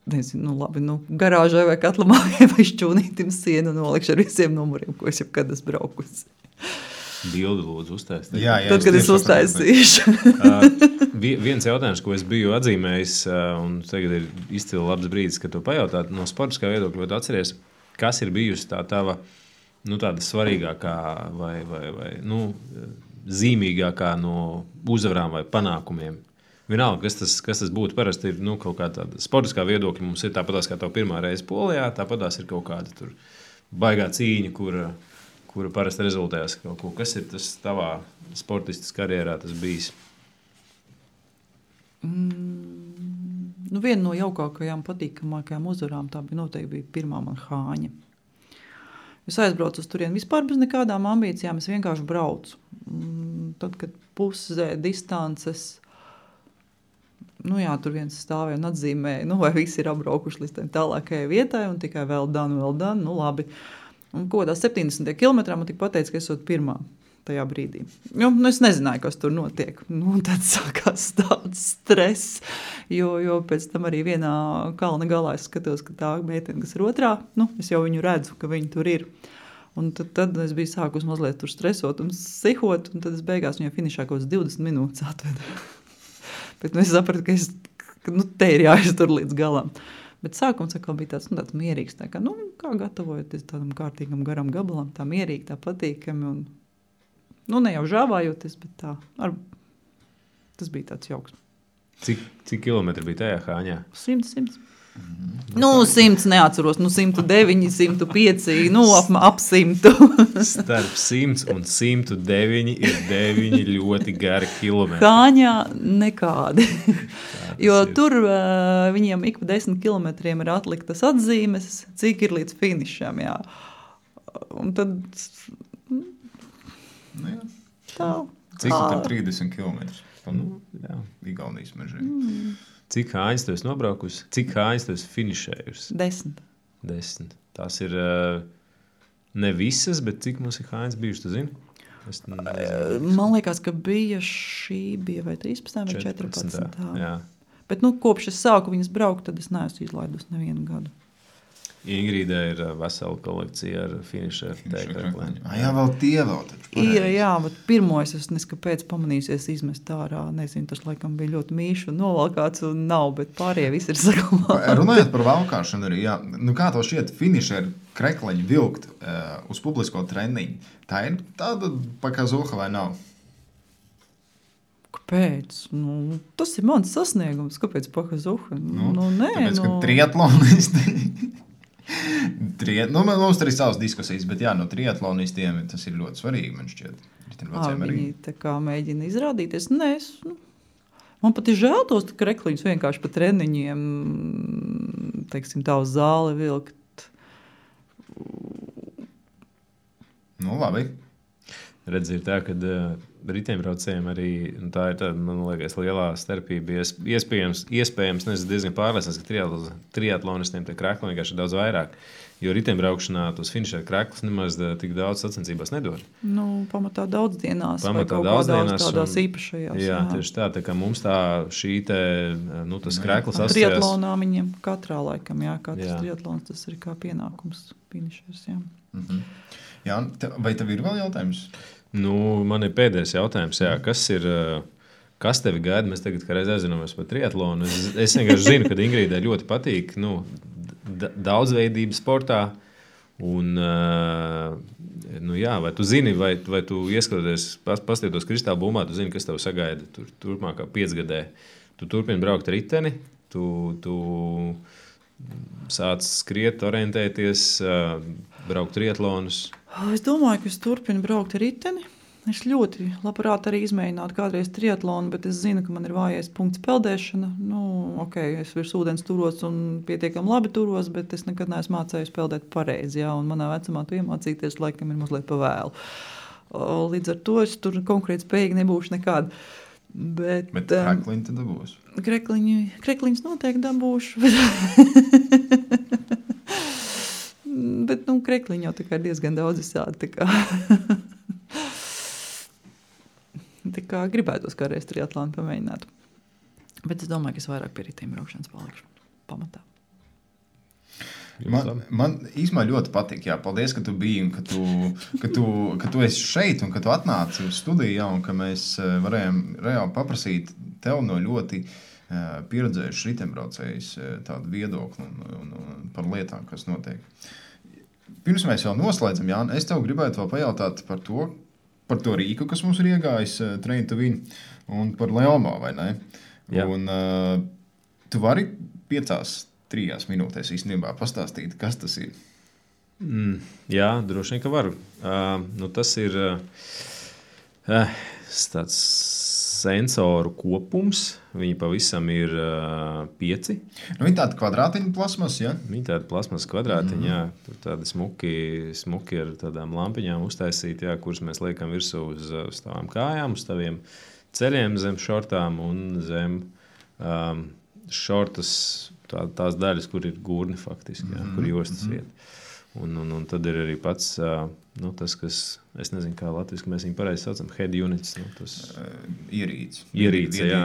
nezinu, garāžai vai katlamājai vai šķūnītim sienu nolikšu ar visiem numuriem, ko es jau kad esmu braukusi. Bildi lūdzu uztaisīt. Jā, tad, kad es uztaisīšu. Viens jautājums, ko es biju atzīmējis, un tagad ir izcili labs brīdis, kad to pajautāt, no sportiskā viedokļa, vai atceries, kas ir bijusi tā tava, tāda svarīgākā vai zīmīgākā no uzvarām vai panākumiem? Vienalga, kas tas būtu, parasti ir kaut kā tāda sportiskā viedokļa, mums ir tāpatās kā tev pirmā reize Polijā, tāpatās ir kaut kāda tur baigā cīņa, kura parasti rezultējas kaut ko. Kas ir tas tavā sportistas karjerā tas bijis? Viena no jaukākajām, patīkamākajām uzvarām tā noteikti bija pirmā man Hāņa. Es aizbraucu uz turieni vispār bez nekādām ambīcijām, es vienkārši braucu. Tad, kad pusē distances, tur viens stāvēja un atzīmēja, vai visi ir apbraukuši līdz tālākajai vietai un tikai vēl done, labi. Un kodā 70 kilometrā man tik pateica, ka esot pirmā tajā brīdī. Es nezināju, kas tur notiek. Tad sākās tāds stress, jo pēc tam arī vienā kalna galā es skatos, ka tā meitene, kas ir otrā, es jau viņu redzu, ka viņi tur ir. Un tad es biju sākus mazliet tur stresot un sihot, un tad es beigās viņai finišā kaut 20 minūtes atvedu. Bet es sapratu, ka te ir jāiztur līdz galam. Bet sākums atkal bija tāds mierīgs, kā gatavojoties tādam kārtīgam garam gabalam, tā mierīgi, tā patīkami un, ne jau žāvājoties, bet tā, tas bija tāds jauks. Cik kilometri bija tajā Hāņā? 100. Nu, 100 neatceros, 109, 105, ap 100. Starp 100 un 109 ir 9 ļoti gari kilometri. Kāņā nekādi. Jo tur viņiem ik pa 10 kilometriem ir atliktas atzīmes, cik ir līdz finišam, jā. Un tad... Nu, jā. Tā. Cik tur 30 kilometrus? Jā, Igaunijas mežiem. Cik kājas tu esi nobraukusi? Cik kājas tu esi finišējusi? 10. 10. Tās ir ne visas, bet cik mums ir kājas bijušas, tu zini? Es nezinu. Man liekas, ka šī bija vai 13 vai 14. Jā. Bet kopš es sāku viņas braukt, tad es neesmu izlaidus nevienu gadu. Ingrīdai ir vesela kolekcija ar finišeru tēkraklēm. Jā, vēl tie vēl taču. Ir, jā, bet pirmo es neskapēc pamanījusies izmest ārā. Nezinu, tas laikam bija ļoti mīši un novalkāts un nav, bet pārējie visi ir saglabāti. Runājot par valkāšanu arī, jā. Nu, kā to šķiet finišeru krekleņu vilkt uz publisko treniņu? Tā ir tāda pakazuha vai nav? Kāpēc? Tas ir mans sasniegums. Kāpēc pakazuha? Nē. Tāpēc, ka triatlonisti... mums tur ir savas diskusijas, bet jā, no triatlonistiem tas ir ļoti svarīgi, man šķiet. Viņi tā kā mēģina izrādīties. Nē, man pat ir žēl tos krekliņus vienkārši pa treniņiem, teiksim, tā uz zāli vilkt. Nu, labi. Redz, ir tā, kad riteņbraucējiem arī, tā ir tāda, man liekas, lielā starpība. Iespējams, nezinu, diezgan pārliecināts, ka triatlonistiem tie krekli vienkārši ir daudz vairāk, jo riteņbraukšanā tos finišēt kreklis nemaz tik daudz sacensībās nedod. Pamatā daudzdienās vai kaut kādās tādās īpašajās. Jā, tieši tā kā mums tā šī te, tas kreklis asociējās. Triatlonā viņiem katrā laikam, jā, katrs triatlons, tas ir kā pienākums finišēs, jā. Mhm. Jā, vai tev ir vēl jautājums? Man ir pēdējais jautājums, jā, kas tevi gaida? Mēs tagad reiz aizināmies par triatlonu. Es vienkārši zinu, ka Ingrīdai ļoti patīk daudzveidība sportā. Un, jā, vai tu zini, vai tu ieskatoties, paskatītos kristāla bumbā, tu zini, kas tev sagaida turpmākā 5 gadē. Tu turpini braukt riteni, tu sāc skriet, orientēties, braukt triatlonus. Es domāju, ka es turpinu braukt ar riteni. Es ļoti labprāt arī izmēģinātu kādreiz triatlonu, bet es zinu, ka man ir vājais punkts peldēšana. Es virs ūdens turos un pietiekami labi turos, bet es nekad neesmu mācējusi peldēt pareizi. Jā, un manā vecumā to iemācīties laikam ir mazliet pa vēlu. Līdz ar to es tur konkrēti spējīgi nebūšu nekāda. Bet krekliņi tad dabūs? Krekliņus noteikti dabūšu. Bet krekliņi jau tā kā ir diezgan daudz visādi. Tā kā gribētos kādreiz triatlonu pamēģināt. Bet es domāju, ka es vairāk pie riteņbraukšanas palikšu pamatā. Man īstenībā ļoti patīk. Jā, paldies, ka tu biji un ka tu esi šeit un ka tu atnāci uz studiju, jā, un ka mēs varējām reāli paprasīt tev no ļoti pieredzējušas riteņbraucējus tādu viedokli un par lietām, kas notiek. Pirms mēs vēl noslēdzam, Jāni, es tev gribētu vēl pajautāt par to rīku, kas mums ir iegājis Train to Win, un par Leomo, vai ne? Jā. Un tu vari 5-3 minūtēs īstenībā pastāstīt, kas tas ir? Jā, droši vien, ka varu. Tas ir tāds sensoru kopums. Viņi pavisam ir 5. Viņi tādi kvadrātiņi plasmas, ja? Viņi tādi plasmas kvadrātiņi, jā. Tur tādi smuki ar tādām lampiņām uztaisīti, jā, kuras mēs liekam virsū uz tavām kājām, uz taviem ceļiem zem šortām un zem šortas tās daļas, kur ir gurni faktiski, jā, kur jostas vieta. Un tad ir arī pats tas, kas, es nezinu, kā latviski mēs viņu pareizi saucam, head units. Ierīce, jā,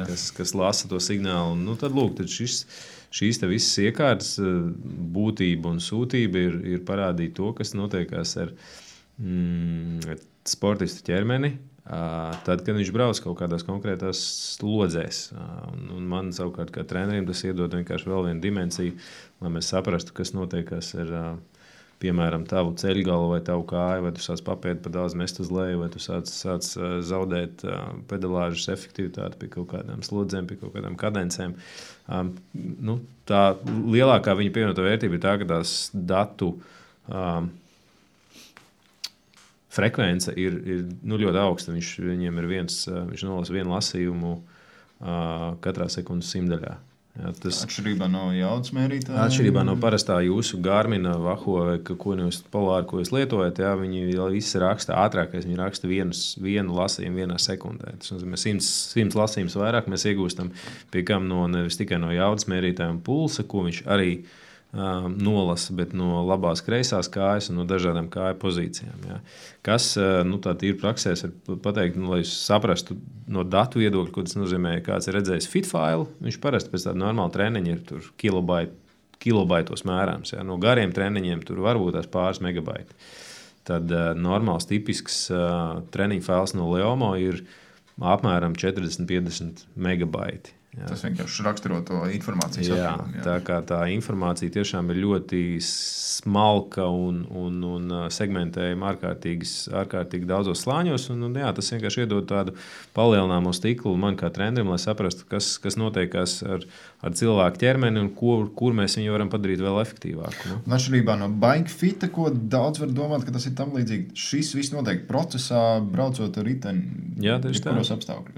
kas lasa to signālu. Tad lūk, tad šīs te visas iekārtas būtība un sūtība ir parādīt to, kas notiekās ar sportistu ķermeni, tad, kad viņš brauc kaut kādās konkrētās slodzēs. Un man savukārt kā trenerim tas iedod vienkārši vēl vienu dimensiju, lai mēs saprastu, kas notiekās ar piemēram, tavu ceļgalu vai tavu kāju, vai tu sāc papēdi par daudz mest uz leju, vai tu sāc zaudēt pedalāžas efektivitāti pie kaut kādām slodzēm, pie kaut kādām kadencēm. Tā lielākā viņa pievienotā vērtība ir tā, ka tās datu frekvence ir ļoti augsta. Viņiem ir viņš nolasa vienu lasījumu katrā sekundes simtdaļā. Jā, atšķirībā no jaudas mērītāja? Atšķirībā no parastā jūsu Garmina, Vaho vai Polāra, ko jūs lietojat, jā, viņi visi raksta ātrākais. Viņi raksta vienu lasījumu vienā sekundē. Tas nozīmē 100 lasījumus vairāk mēs iegūstam, pie kam nevis tikai no jaudas mērītāja un pulsa, ko viņš arī nolasa, bet no labās kreisās kājas un no dažādām kāju pozīcijām. Jā. Kas tā tīri praksēs var pateikt, lai jūs saprastu no datu viedokļa, ko tas nozīmē, kāds ir redzējis fitfailu, viņš parasti pēc tāda normāla treniņa ir tur kilobaitos mērāms. Jā. No gariem treniņiem tur varbūt tās pāris megabaiti. Tad normāls, tipisks treniņa fails no Leomo ir apmēram 40-50 megabaiti. Jā. Tas vienkārši raksturo to informācijas apjomu. Tā kā tā informācija tiešām ir ļoti smalka un segmentējama ārkārtīgi daudzos slāņos. Tas vienkārši iedod tādu palielināmo stiklu man kā trenerim, lai saprastu, kas notiekās ar cilvēku ķermeni un kur mēs viņu varam padarīt vēl efektīvāku. Atšķirībā no bike fita, ko daudz var domāt, ka tas ir tam līdzīgi. Šis viss notiek procesā, braucot ar riteni. Jā, tieši tā.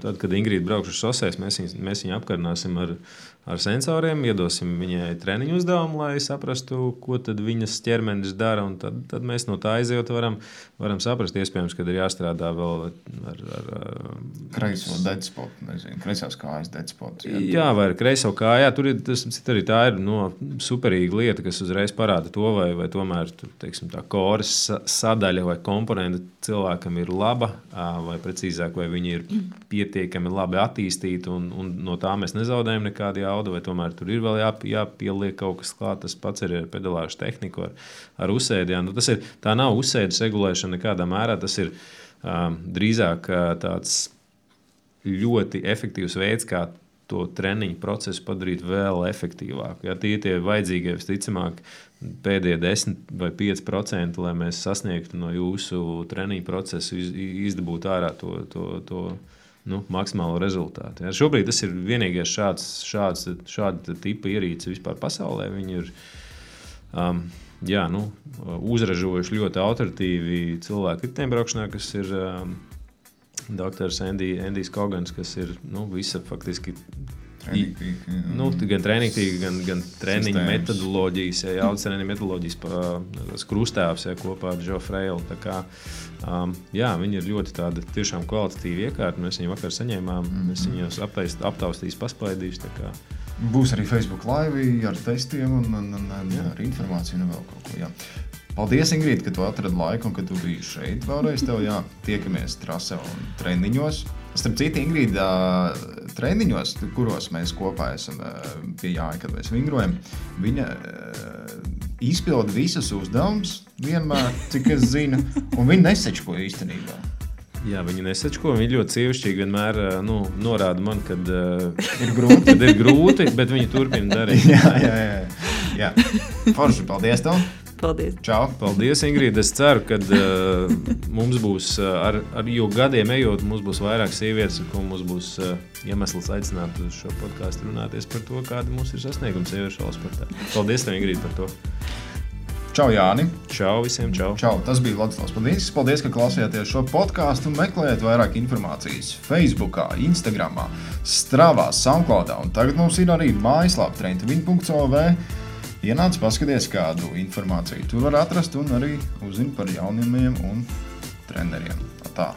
Tad, kad Ingrīda braukš uz šoseis, mēs viņu apkarināsim ar sensoriem, iedosim viņai treniņu uzdevumu, lai saprastu, ko tad viņas ķermenis dara, un tad mēs no tā aizejot varam saprast, iespējams, kad ir jāstrādā vēl ar kreiso deadspotu, kreisās kājas deadspotu. Jā, vai ar kreiso kājā. Tur ir, tā ir superīga lieta, kas uzreiz parāda to, vai tomēr teiksim, tā koras sadaļa vai komponenta cilvēkam ir laba, vai precīzāk, vai viņi ir pietiekami labi attīstīti, un no tā mēs nezaudējam nekādu jaudu, vai tomēr tur ir vēl jāpieliek kaut kas klāt. Tas pats ir ar pedalāžu tehniku, ar uzsēdi. Tā nav uzsēdes regulēšana nekādā mērā, tas ir drīzāk tāds ļoti efektīvs veids, kā to treniņu procesu padarīt vēl efektīvāku. Ja, tie vajadzīgie, visticamāk, pēdējie 10 vai 5%, lai mēs sasniegtu no jūsu treniņu procesu, izdabūt ārā to maksimālo rezultātu. Ja. Šobrīd tas ir vienīgais šāda tipa ierīce vispār pasaulē. Viņi ir uzražojuši ļoti autoritīvi cilvēku riteņbraukšanā, kas ir doktors Endijs Kogans, kas ir visa faktiski gan treniņtīga, gan treniņa metodoloģijas, jaudas treniņa metodoloģijas krustāvs kopā ar Joe Frailu. Tā kā, viņi ir ļoti tāda tiešām kvalitatīva iekārta. Mēs viņu vakar saņēmām, mēs viņus aptaustīs, paspaidīs. Tā kā. Būs arī Facebook live ar testiem un ar informāciju un vēl kaut ko. Jā. Paldies, Ingrīda, ka tu atradi laiku un ka tu biji šeit vēlreiz. Tiekamies trasē un treniņos. Starp citu, Ingrīda, treniņos, kuros mēs kopā esam pie Jāņa, kad mēs vingrojam, viņa izpilda visus uzdevumus vienmēr, cik es zinu, un viņa nesečko īstenībā. Jā, viņa nesečko, viņa ļoti sievišķīgi vienmēr norāda man, kad ir grūti, bet viņa turpina darīt. Jā. Forši, paldies tev! Paldies. Čau. Paldies, Ingrīda. Es ceru, ka mums būs, jo gadiem ejot, mums būs vairāk sievietes, un mums būs iemesls aicināt uz šo podcastu runāties par to, kāda mums ir sasnieguma sieviešu sportā. Paldies tev, Ingrīda, par to. Čau, Jāni. Čau visiem, čau. Čau, tas bija Vladislavs Padīnskis. Paldies, ka klausījāties šo podcastu un meklējat vairāk informācijas Facebookā, Instagramā, Stravā, Soundcloudā. Un tagad mums ir arī mājaslapa trendwin.lv. Ienāc, paskaties, kādu informāciju tur var atrast un arī uzzini par jaunumiem un treneriem. Tā.